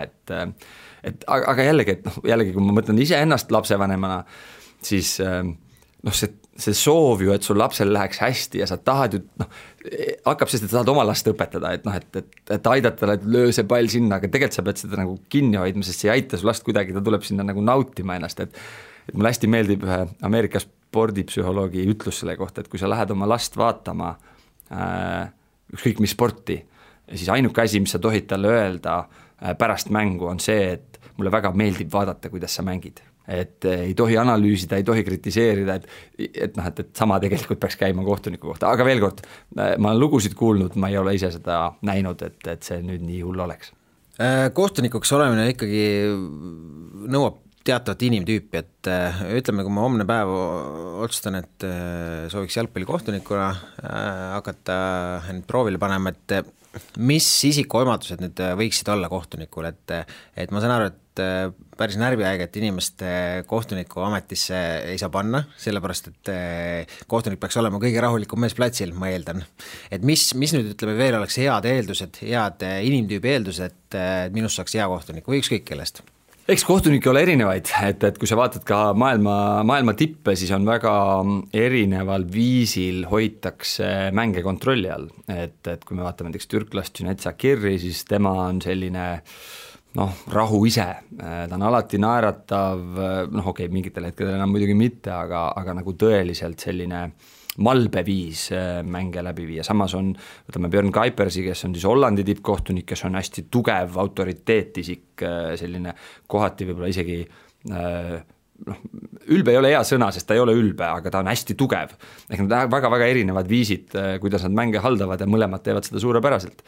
aga jällegi, kui ma mõtlen ise ennast lapsevanemana, siis see soov ju, et sul lapsel läheks hästi ja sa tahad ju, hakkab sest, et sa tahad oma last õpetada, et aidata talle, et löö see pall sinna, aga tegelikult sa pead seda nagu kinni hoidma, sest see ei aita su last kuidagi, ta tuleb sinna nagu nautima ennast, et mulle hästi meeldib ühe Ameerika spordipsühholoogi ütlus selle kohta, et kui sa lähed oma last vaatama ükskõik mis sporti, siis ainuke asi, mis sa tohid talle öelda pärast mängu on see, et mulle väga meeldib vaadata, kuidas sa mängid. Et ei tohi analüüsida, ei tohi kritiseerida, et sama tegelikult peaks käima kohtuniku kohta, aga veel kord, ma olen lugusid kuulnud, ma ei ole ise seda näinud, et see nüüd nii hull oleks. Kohtunikuks olemine ikkagi nõuab teatavat inimtüüpi, et ütleme, kui ma homne päev otsustan, et sooviks jalgpallikohtunikuna hakata proovile panema, et mis isikuomadused nüüd võiksid olla kohtunikul, et ma saan aru, et päris närviäiget inimeste kohtuniku ametisse ei saa panna, sellepärast, et kohtunik peaks olema kõige rahulikum mees platsil, ma eeldan. Et mis nüüd ütleme veel oleks head eeldused, head inimtüübi eeldused, et minust saaks hea kohtunik või ükskõik kellest? Eks kohtunikke ole erinevaid, et kui sa vaatad ka maailma tippe, siis on väga erineval viisil hoitakse mänge kontrolli all. Et kui me vaatame näiteks türklast Cüneyt Çakır'i, siis tema on selline rahu ise, ta on alati naeratav, mingitel hetkedel enam muidugi mitte, aga nagu tõeliselt selline malbeviis mänge läbi viia. Samas on, võtame Björn Kuipersi, kes on siis Hollandi tippkohtunik, kes on hästi tugev autoriteetisik, selline kohati võib-olla isegi, ülbe ei ole hea sõna, sest ta ei ole ülbe, aga ta on hästi tugev. Ehk nad väga-väga erinevad viisid, kuidas nad mänge haldavad ja mõlemad teevad seda suurepäraselt.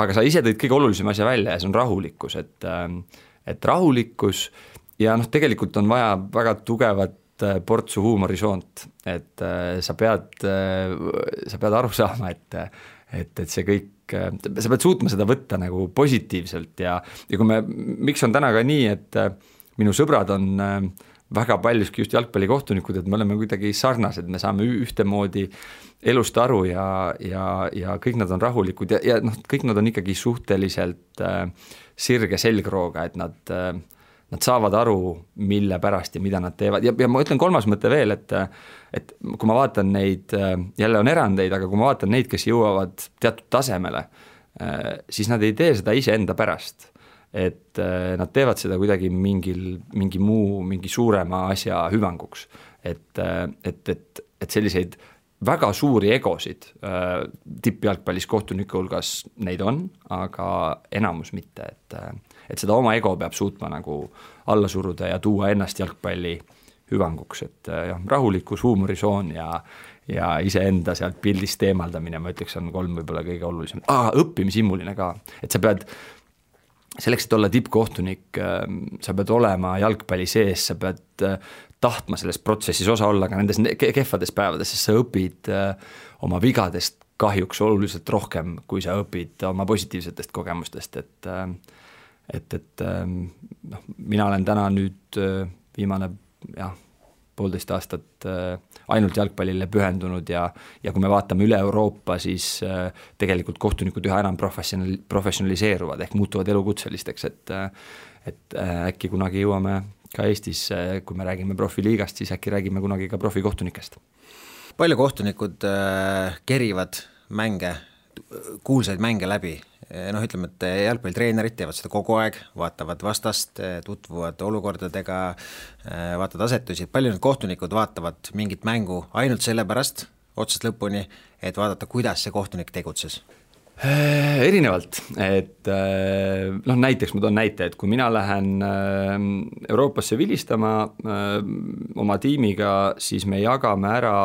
Aga sa ise tõid kõige olulisem asja välja ja see on rahulikkus, et rahulikkus ja noh, tegelikult on vaja väga tugevat portsu huumorisoont, et sa pead aru saama, et see kõik, sa pead suutma seda võtta nagu positiivselt ja kui miks on täna ka nii, et minu sõbrad on väga paljuski just jalgpallikohtunikud, et me oleme kuidagi sarnased, me saame ühtemoodi elust aru ja kõik nad on rahulikud ja noh, kõik nad on ikkagi suhteliselt sirge selgrooga, et nad saavad aru, mille pärast ja mida nad teevad ja ma ütlen kolmas mõte veel, et kui ma vaatan neid, jälle on erandeid, aga kui ma vaatan neid, kes jõuavad teatud tasemele, siis nad ei tee seda iseenda pärast, et nad teevad seda kuidagi mingi suurema asja hüvanguks, et selliseid väga suuri egosid tippjalgpallis kohtuniku hulgas neid on, aga enamus mitte, et seda oma ego peab suutma nagu alla suruda ja tuua ennast jalgpalli hüvanguks, et rahulikkus, huumorisoon ja iseenda sealt pildist eemaldamine, ma ütleks, on 3 võib-olla kõige olulisem. Õppimishimuline ka, et sa pead selleks, et olla tippkohtunik, sa pead olema jalgpalli sees, sa pead tahtma selles protsessis osa olla ka nendes kehvades päevades, sest sa õpid oma vigadest kahjuks oluliselt rohkem, kui sa õpid oma positiivsetest kogemustest, et mina olen täna nüüd viimane 1,5 aastat ainult jalgpallile pühendunud ja kui me vaatame üle Euroopa, siis tegelikult kohtunikud üha enam professionaliseeruvad ehk muutuvad elukutselisteks, et äkki kunagi jõuame ka Eestis, kui me räägime profiliigast, siis äkki räägime kunagi ka profikohtunikest. Palju kohtunikud kerivad mänge, kuulsaid mänge läbi? Ütleme, et jalgpallitreenerid teevad seda kogu aeg, vaatavad vastast, tutvuvad olukordadega, vaatavad asetusi. Palju need kohtunikud vaatavad mingit mängu ainult selle pärast, otsast lõpuni, et vaadata, kuidas see kohtunik tegutses? Erinevalt, et näiteks ma toon näite, et kui mina lähen Euroopasse vilistama oma tiimiga, siis me jagame ära,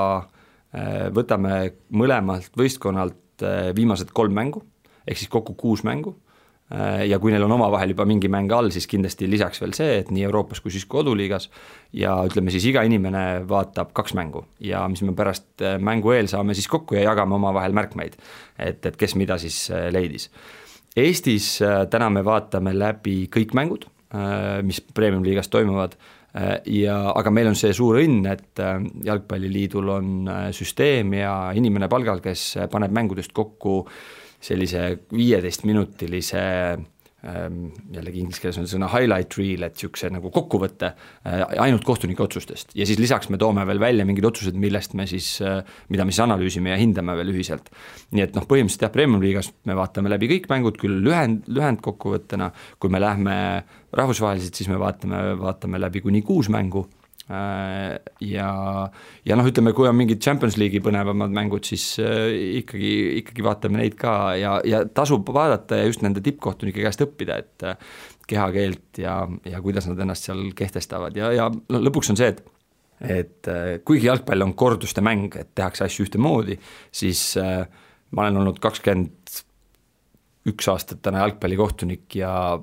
võtame mõlemalt võistkonnalt viimased 3 mängu, ehk siis kokku 6 mängu ja kui neil on omavahel juba mingi mäng all, siis kindlasti lisaks veel see, et nii Euroopas kui siis koduliigas ja ütleme siis iga inimene vaatab 2 mängu ja mis me pärast mängu eel saame siis kokku ja jagame omavahel märkmeid, et kes mida siis leidis. Eestis täna me vaatame läbi kõik mängud, mis Premium-liigas toimuvad, aga meil on see suur õnn, et Jalgpalliliidul on süsteem ja inimene palgal, kes paneb mängudest kokku sellise 15-minutilise, jällegi inglise keeles on sõna highlight reel, et niisuguse nagu kokkuvõtte ainult kohtunike otsustest ja siis lisaks me toome veel välja mingid otsused, millest me siis, mida me siis analüüsime ja hindame veel ühiselt. Nii et põhimõtteliselt Premium-liigas me vaatame läbi kõik mängud, küll lühend kokkuvõttena, kui me lähme rahvusvaheliselt, siis me vaatame läbi kuni 6 mängu ja ütleme, kui on mingid Champions League'i põnevamad mängud, siis ikkagi vaatame neid ka ja tasub vaadata ja just nende tippkohtunike käest õppida, et kehakeelt ja kuidas nad ennast seal kehtestavad ja lõpuks on see, et kuigi jalgpall on korduste mäng, et tehakse asju ühtemoodi, siis ma olen olnud 21 aastat täna jalgpallikohtunik ja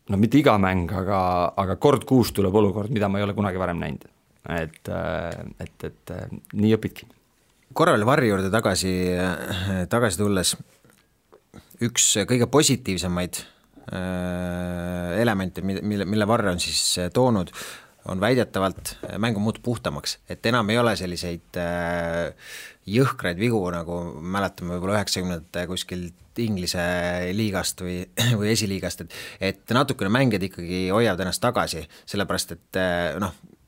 mitte iga mäng, aga kord 6 tuleb olukord, mida ma ei ole kunagi varem näinud. Et nii õpidki. Korra veel Varri juurde tagasi tulles, üks kõige positiivsemaid elemente, mille Varre on siis toonud, on väidetavalt mängu muutub puhtamaks, et enam ei ole selliseid jõhkraid vigu, nagu mäletame võib-olla 90 kuskil Inglise liigast või esiliigast, et natukene mängijad ikkagi hoiavad ennast tagasi, sellepärast et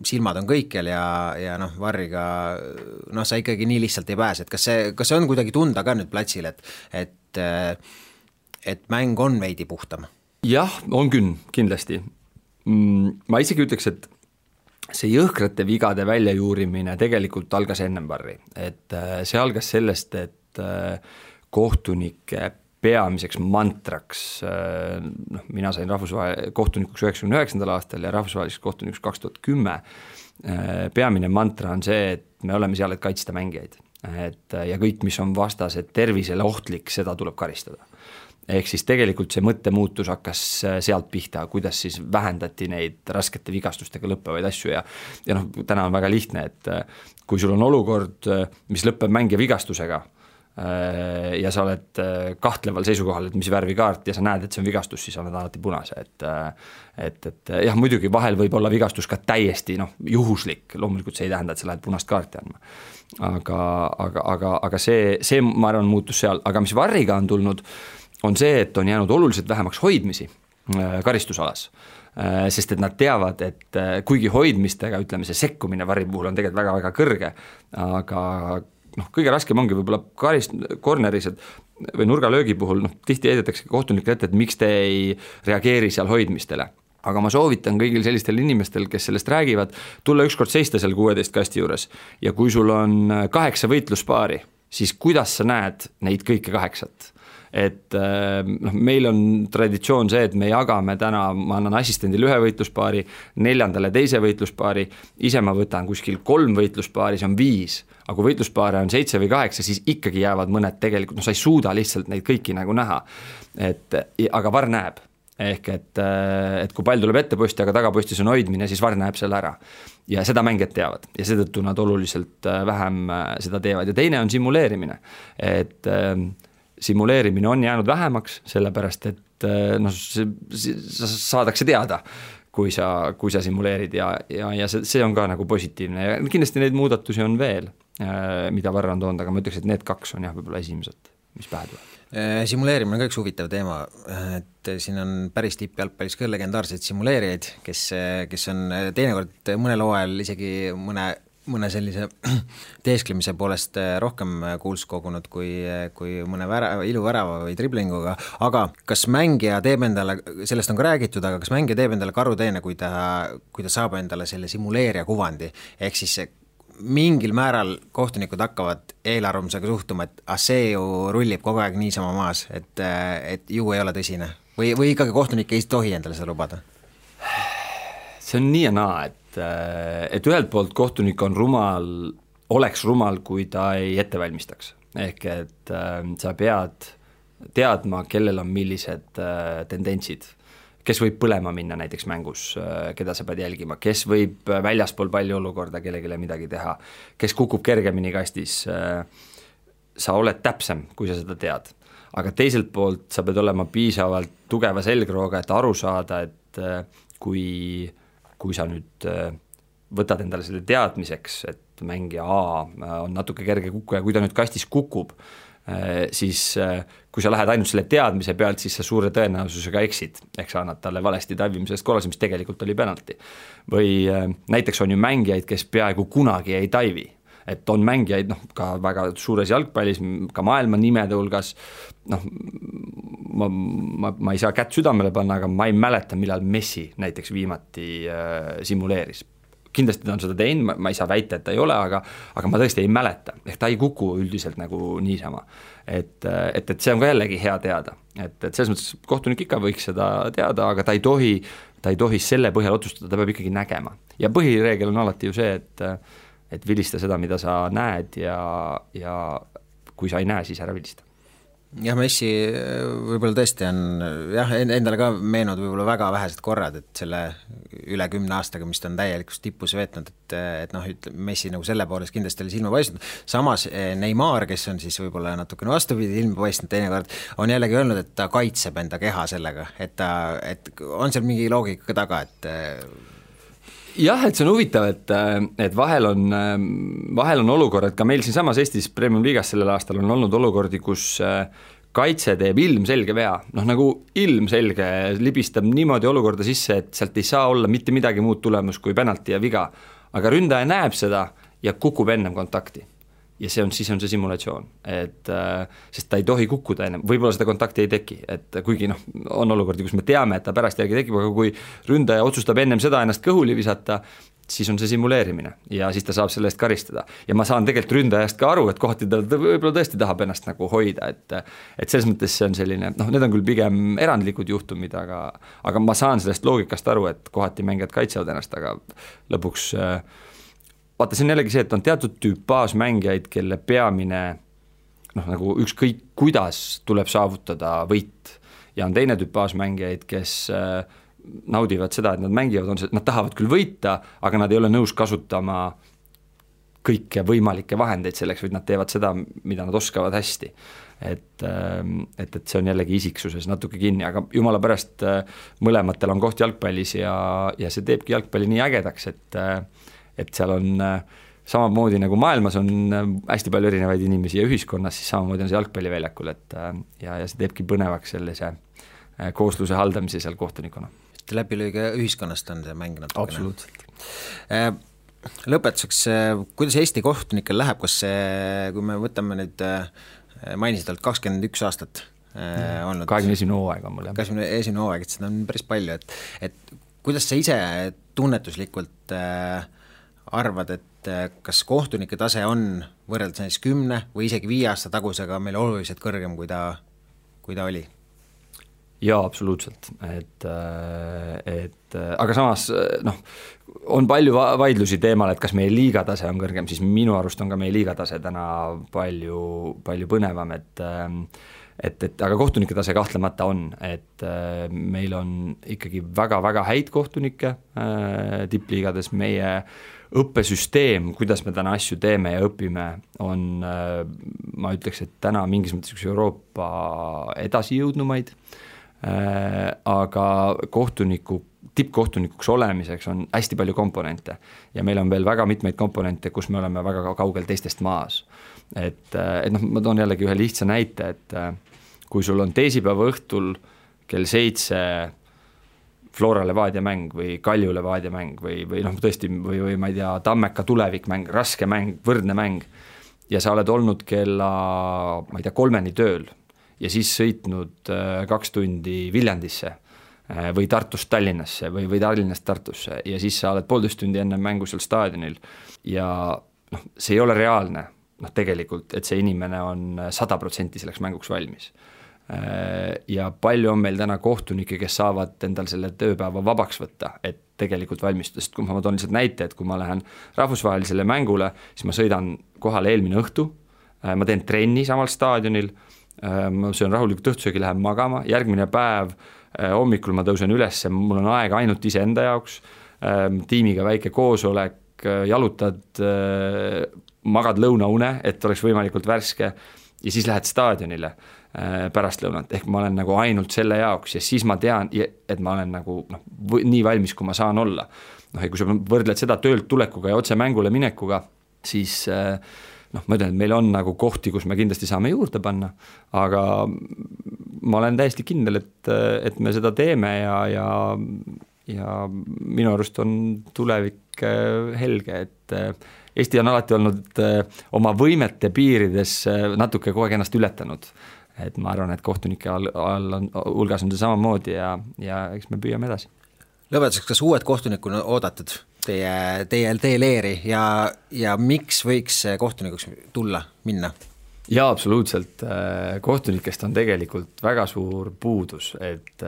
silmad on kõikjal ja Varriga sa ikkagi nii lihtsalt ei pääse, et kas see on kuidagi tunda ka nüüd platsil, et mäng on veidi puhtam? Jah, on küll, kindlasti. Ma isegi ütleks, et see jõhkrate vigade väljajuurimine tegelikult algas ennem Varri, et see algas sellest, et kohtunike peamiseks mantraks, mina sain kohtunikuks 99. aastal ja rahvusvaheliseks kohtunikuks 2010, peamine mantra on see, et me oleme seal, et kaitsta mängijaid, ja kõik, mis on vastased tervisele ohtlik, seda tuleb karistada. ehk siis tegelikult see mõttemuutus hakkas sealt pihta, kuidas siis vähendati neid raskete vigastustega lõppevaid asju ja noh, täna on väga lihtne, et kui sul on olukord, mis lõpeb mängija vigastusega ja sa oled kahtleval seisukohal, et mis värvi kaart ja sa näed, et see on vigastus, siis on alati punase, et jah, muidugi vahel võib olla vigastus ka täiesti juhuslik, loomulikult see ei tähenda, et sa lähed punast kaarti andma. Aga see ma arvan muutus seal, aga mis varriga on tulnud, on see, et on jäänud oluliselt vähemaks hoidmisi karistusalas. Sest et nad teavad, et kuigi hoidmistega, ütleme, see sekkumine varri puhul on tegelikult väga-väga kõrge, aga kõige raskem ongi võib-olla korneris või nurgalöögi puhul, tihti heidetakse kohtunikele ette, et miks te ei reageeri seal hoidmistele. Aga ma soovitan kõigil sellistel inimestel, kes sellest räägivad, tulla ükskord seista seal 16 kasti juures ja kui sul on 8 võitluspaari, siis kuidas sa näed neid kõike 8? Et meil on traditsioon see, et me jagame täna, ma annan assistendile 1 võitluspaari, 4. teise võitluspaari, ise ma võtan kuskil 3 võitluspaari, see on 5, aga kui võitluspaare on 7 või 8, siis ikkagi jäävad mõned tegelikult, sa ei suuda lihtsalt neid kõiki nagu näha, aga VAR näeb. Ehk et kui pall tuleb ette posti, aga tagapostis on hoidmine, siis VAR näeb selle ära. Ja seda mängijad teavad ja seetõttu nad oluliselt vähem seda teevad. Ja teine on simuleerimine. Et simuleerimine on jäänud vähemaks, sellepärast et saadakse teada, kui sa simuleerid ja see on ka nagu positiivne. Ja kindlasti neid muudatusi on veel, mida VAR on toonud, aga ma ütleks, et need 2 on jah võib-olla esimesed, mis pähe tuleb. Simuleerimine on ka üks huvitav teema, et siin on päris tippjalgpallis ka legendaarseid simuleerijaid, kes on teinekord mõnel hooajal isegi mõne sellise teesklemise poolest rohkem kuuls kogunud kui mõne iluvärava või driblinguga, aga kas mängija teeb endale, sellest on ka räägitud, aga kas mängija teeb endale karuteene, kui ta saab endale selle simuleerija kuvandi, ehk siis mingil määral kohtunikud hakkavad eelarvamusega suhtuma, et see ju rullib kogu aeg niisama maas, et ju ei ole tõsine või ikkagi kohtunik ei tohi endale seda lubada? See on nii ja naa, et ühelt poolt kohtunik on oleks rumal, kui ta ei ettevalmistaks. Ehk et sa pead teadma, kellel on millised tendentsid, kes võib põlema minna näiteks mängus, keda sa pead jälgima, kes võib väljaspool palli olukorda kellegile midagi teha, kes kukub kergemini kastis, sa oled täpsem, kui sa seda tead. Aga teiselt poolt sa pead olema piisavalt tugeva selgrooga, et aru saada, et kui sa nüüd võtad endale selle teadmiseks, et mängija A on natuke kerge kukku ja kui ta nüüd kastis kukub, siis kui sa lähed ainult selle teadmise pealt, siis sa suure tõenäosusega eksid, ehk sa annad talle valesti taivimisest korraldamise, mis tegelikult oli penalti. Või näiteks on ju mängijaid, kes peaaegu kunagi ei taivi, et on mängijaid ka väga suures jalgpallis, ka maailma nimede hulgas, ma ei saa kätt südamele panna, aga ma ei mäleta, millal Messi näiteks viimati simuleeris. Kindlasti ta on seda teinud, ma ei saa väita, et ta ei ole, aga ma tõesti ei mäleta, ehk ta ei kuku üldiselt nagu niisama. Et see on ka jällegi hea teada, et selles mõttes kohtunik ikka võiks seda teada, aga ta ei tohi selle põhjal otsustada, ta peab ikkagi nägema. Ja põhireegel on alati ju see, et vilista seda, mida sa näed ja kui sa ei näe, siis ära vilista. Jah, Messi võib-olla tõesti on, jah, endale ka meenud võib-olla väga vähesed korrad, et selle üle 10 aastaga, mis ta on täielikult tippus veetnud, et Messi nagu selle poolest kindlasti oli silma paistnud. Samas Neymar, kes on siis võib-olla natukene vastupidi ilma paistnud teinekord, on jällegi öelnud, et ta kaitseb enda keha sellega, et on seal mingi loogika taga, et jah, et see on huvitav, et vahel on olukord, et ka meil siin samas Eestis Premium Liigas sellel aastal on olnud olukordi, kus kaitse teeb ilmselge vea, nagu ilmselge libistab niimoodi olukorda sisse, et sealt ei saa olla mitte midagi muud tulemus kui penalti ja viga, aga ründaja näeb seda ja kukub ennem kontakti. Ja siis on see simulatsioon, sest ta ei tohi kukkuda ennem, võib-olla seda kontakti ei teki, et kuigi on olukordi, kus me teame, et ta pärast järgi tekib, aga kui ründaja otsustab ennem seda ennast kõhuli visata, siis on see simuleerimine ja siis ta saab selle eest karistada. Ja ma saan tegelikult ründajast ka aru, et kohati ta võib-olla tõesti tahab ennast nagu hoida, et selles mõttes see on selline, need on küll pigem erandlikud juhtumid, aga ma saan sellest loogikast aru, et kohati mängijad kaitsevad ennast, aga lõpuks vaata, see on jällegi see, et on teatud tüüp baasmängijaid, kelle peamine nagu ükskõik kuidas tuleb saavutada võit, ja on teine tüpaaž mängijaid, kes naudivad seda, et nad mängivad, nad tahavad küll võita, aga nad ei ole nõus kasutama kõiki võimalikke vahendeid selleks, vaid nad teevad seda, mida nad oskavad hästi. Et see on jällegi isiksuses natuke kinni, aga jumala pärast mõlematel on koht jalgpallis ja see teebki jalgpalli nii ägedaks, et seal on samamoodi nagu maailmas on hästi palju erinevaid inimesi ja ühiskonnas, siis samamoodi on see jalgpalliväljakul, ja see teebki põnevaks sellise koosluse haldamise seal kohtunikuna. Läbilõige ühiskonnast on see mäng natukene. Absoluutselt. Lõpetuseks, kuidas Eesti kohtunikel läheb, kas see, kui me võtame nüüd, mainisid alt 21 aastat olnud. 21 hooaega mul. 21 hooaega, et seda on päris palju, et kuidas sa ise tunnetuslikult arvad, et kas kohtunike tase on võrreldes näiteks 10 või isegi 5 aasta tagusega meil oluliselt kõrgem, kui ta oli? Jaa, absoluutselt, aga samas on palju vaidlusi teemal, et kas meie liigatase on kõrgem, siis minu arust on ka meie liigatase täna palju põnevam, et aga kohtunike tase kahtlemata on, et meil on ikkagi väga-väga häid kohtunikke tippliigades, meie õppesüsteem, kuidas me täna asju teeme ja õpime, on, ma ütleks, et täna mingis mõttes üks Euroopa edasijõudnumaid, aga tippkohtunikuks olemiseks on hästi palju komponente ja meil on veel väga mitmeid komponente, kus me oleme väga kaugel teistest maas. Et ma toon jällegi ühe lihtsa näite, et kui sul on teisipäeva õhtul kell 7 Flora Levadia mäng või Kalju Levadia mäng või tõesti, või ma ei tea, Tammeka tulevikmäng, raske mäng, võrdne mäng ja sa oled olnud kella, ma ei tea, 3 tööl ja siis sõitnud 2 tundi Viljandisse või Tartust Tallinnasse või Tallinnast Tartusse ja siis sa oled 1,5 tundi enne mängu seal staadionil ja see ei ole reaalne, tegelikult, et see inimene on 100% selleks mänguks valmis. Ja palju on meil täna kohtunikke, kes saavad endal selle tööpäeva vabaks võtta, et tegelikult valmistuda, sest kui ma toon lihtsalt näite, et kui ma lähen rahvusvahelisele mängule, siis ma sõidan kohale eelmine õhtu, ma teen trenni samal staadionil, ma söön rahulikult õhtusöögi, lähen magama, järgmine päev hommikul ma tõusen üles, mul on aega ainult iseenda jaoks, tiimiga väike koosolek, jalutad, magad lõunaune, et oleks võimalikult värske ja siis lähed staadionile pärast lõunat, ehk ma olen nagu ainult selle jaoks ja siis ma tean, et ma olen nagu nii valmis, kui ma saan olla. Ja kui sa võrdled seda töölt tulekuga ja otse mängule minekuga, siis ma ütlen, et meil on nagu kohti, kus me kindlasti saame juurde panna, aga ma olen täiesti kindel, et me seda teeme ja minu arust on tulevik helge, et Eesti on alati olnud oma võimete piirides natuke kogu aeg ennast ületanud. Et ma arvan, et kohtunike hulgas on see samamoodi ja eks me püüame edasi. Lõpetuseks, kas uued kohtunikku on oodatud teie leeri ja miks võiks kohtunikuks tulla, minna? Jaa, absoluutselt. Kohtunikest on tegelikult väga suur puudus, et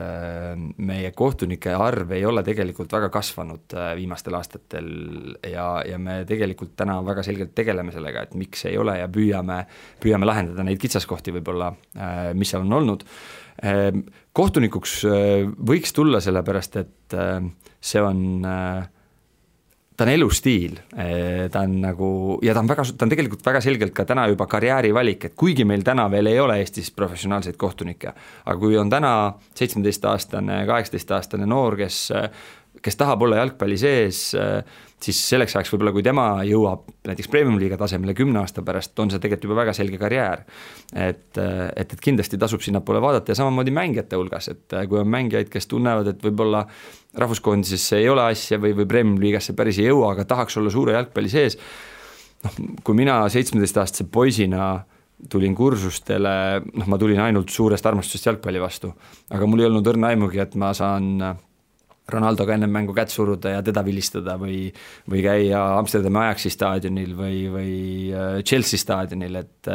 meie kohtunike arv ei ole tegelikult väga kasvanud viimastel aastatel ja me tegelikult täna väga selgelt tegeleme sellega, et miks ei ole ja püüame lahendada neid kitsaskohti võib-olla, mis seal on olnud. Kohtunikuks võiks tulla sellepärast, et see on ta on elustiil, ta on nagu, ja ta on tegelikult väga selgelt ka täna juba karjäärivalik, et kuigi meil täna veel ei ole Eestis professionaalseid kohtunikke, aga kui on täna 17-aastane, 18-aastane noor, kes tahab olla jalgpalli sees, siis selleks ajaks võib-olla, kui tema jõuab näiteks Premium-liiga tasemele 10 aasta pärast, on see tegelikult juba väga selge karjäär. Et kindlasti tasub sinnapoole vaadata ja samamoodi mängijate hulgas, et kui on mängijaid, kes tunnevad, et võib-olla rahvuskoondisesse ei ole asja või Premium-liigasse päris ei jõua, aga tahaks olla suure jalgpalli sees. Kui mina 17-aastase poisina tulin kursustele, ma tulin ainult suurest armastusest jalgpalli vastu, aga mul ei olnud õrna aimugi, et ma saan Ronaldoga enne mängu kätt suruda ja teda vilistada või käia Amsterdami Ajaxi staadionil või Chelsea staadionil, et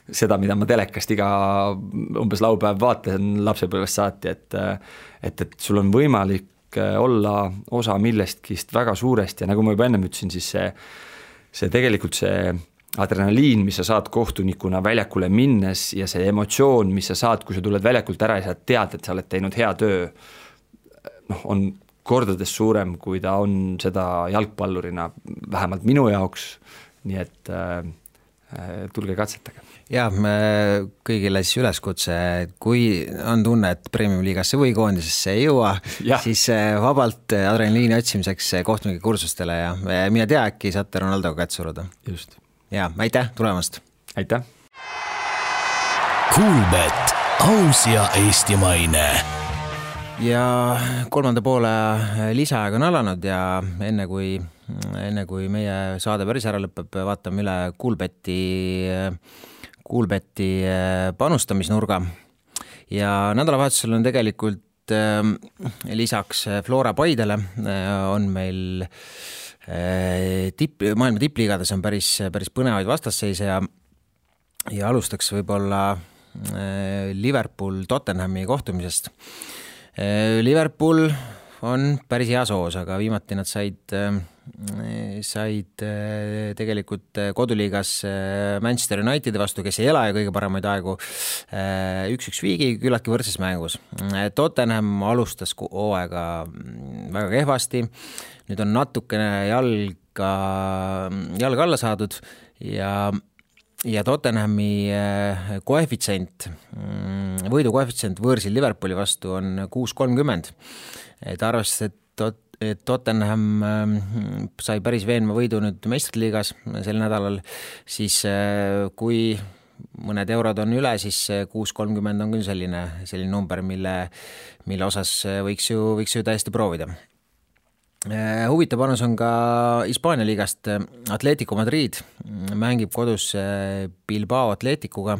seda, mida ma telekast iga umbes laupäev vaatan lapsepõlvest saati, et sul on võimalik olla osa millestkist väga suurest ja nagu ma juba ennem ütlesin, siis see tegelikult see adrenaliin, mis sa saad kohtunikuna väljakule minnes ja see emotsioon, mis sa saad, kui sa tuled väljakult ära ja sa tead, et sa oled teinud hea töö, on kordades suurem, kui ta on seda jalgpallurina, vähemalt minu jaoks, nii et tulge katsetage. Ja kõigile siis üleskutse, kui on tunne, et Premium-liigasse või koondisesse ei jõua, siis vabalt adrenaliini otsimiseks kohtunike kursustele ja mine tea, äkki saate Ronaldoga kätt suruda. Just. Ja aitäh tulemast! Aitäh! Kuulbet, aus ja eestimaine. Ja kolmanda poole lisaaeg on alanud ja enne kui meie saade päris ära lõpeb, vaatame üle Kuulbeti panustamisnurga ja nädalavahetusel on tegelikult lisaks Flora Paidele on meil maailma tippliigades on päris põnevaid vastasseise ja alustaks võib-olla Liverpool Tottenhami kohtumisest. Liverpool on päris hea soos, aga viimati nad said tegelikult koduliigas Manchester Unitedi vastu, kes ei ela ja kõige paremaid aegu 1-1 viigi küllaltki võrdses mängus. Tottenham alustas hooaega väga kehvasti, nüüd on natukene jalg alla saadud ja Tottenhami võidu koefitsient võõrsil Liverpooli vastu on 6.30. Et arvestades, et Tottenham sai päris veenva võidu nüüd meistriliigas sel nädalal, siis kui mõned eurod on üle, siis 6.30 on küll selline number, mille osas võiks ju täiesti proovida. Huvitav panus on ka Hispaania liigast. Atletico Madrid mängib kodus Bilbao Atleticuga.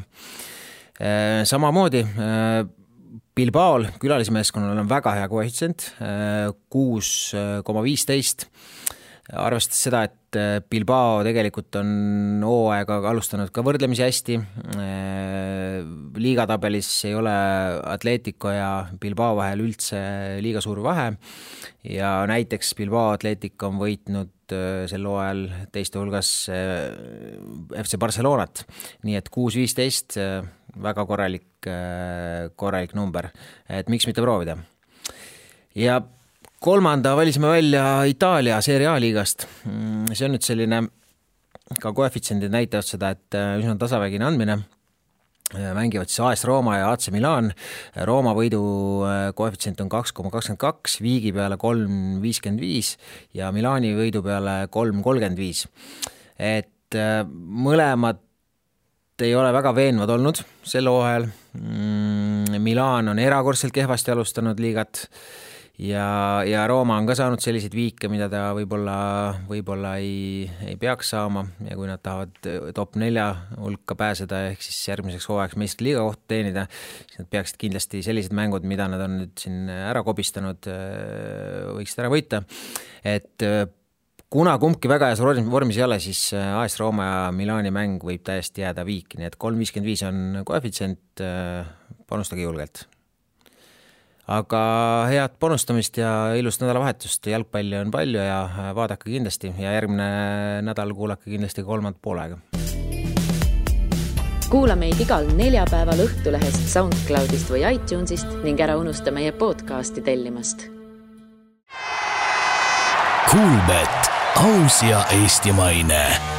Samamoodi Bilbaol külalismeeskonnal on väga hea koefitsient, 6,15. Arvestades seda, et Bilbao tegelikult on hooaega alustanud ka võrdlemisi hästi. Liigatabelis ei ole Atletico ja Bilbao vahel üldse liiga suur vahe ja näiteks Bilbao Atletico on võitnud sel hooajal teiste hulgas FC Barcelonat, nii et 6.15 väga korralik number, et miks mitte proovida. Ja kolmanda valisime välja Itaalia Serie A liigast. See on nüüd selline, ka koefitsiendid näitavad seda, et üsna tasavägine andmine. Mängivad siis AS Rooma ja AC Milan. Rooma võidu koefitsient on 2,22, viigi peale 3,55 ja Milani võidu peale 3,35. Et mõlemad ei ole väga veenvad olnud sel hooajal. Milan on erakordselt kehvasti alustanud liigat ja Rooma on ka saanud selliseid viike, mida ta võib-olla ei peaks saama ja kui nad tahavad top 4 hulka pääseda ehk siis järgmiseks hooajaks meistriliiga kohta teenida, siis nad peaksid kindlasti sellised mängud, mida nad on nüüd siin ära kobistanud, võiksid ära võita. Et kuna kumbki väga heas vormis ei ole, siis AS Rooma ja Milani mäng võib täiesti jääda viiki, nii et 3,55 on koefitsient, panustage julgelt. Aga head panustamist ja ilust nädalavahetust, jalgpalli on palju ja vaadake kindlasti ja järgmine nädal kuulake kindlasti kolmand poolega. Kuula meid igal neljapäeval Õhtulehest, SoundCloudist või iTunesist ning ära unusta meie podcasti tellimast. Kuulbet, aus ja eestimaine.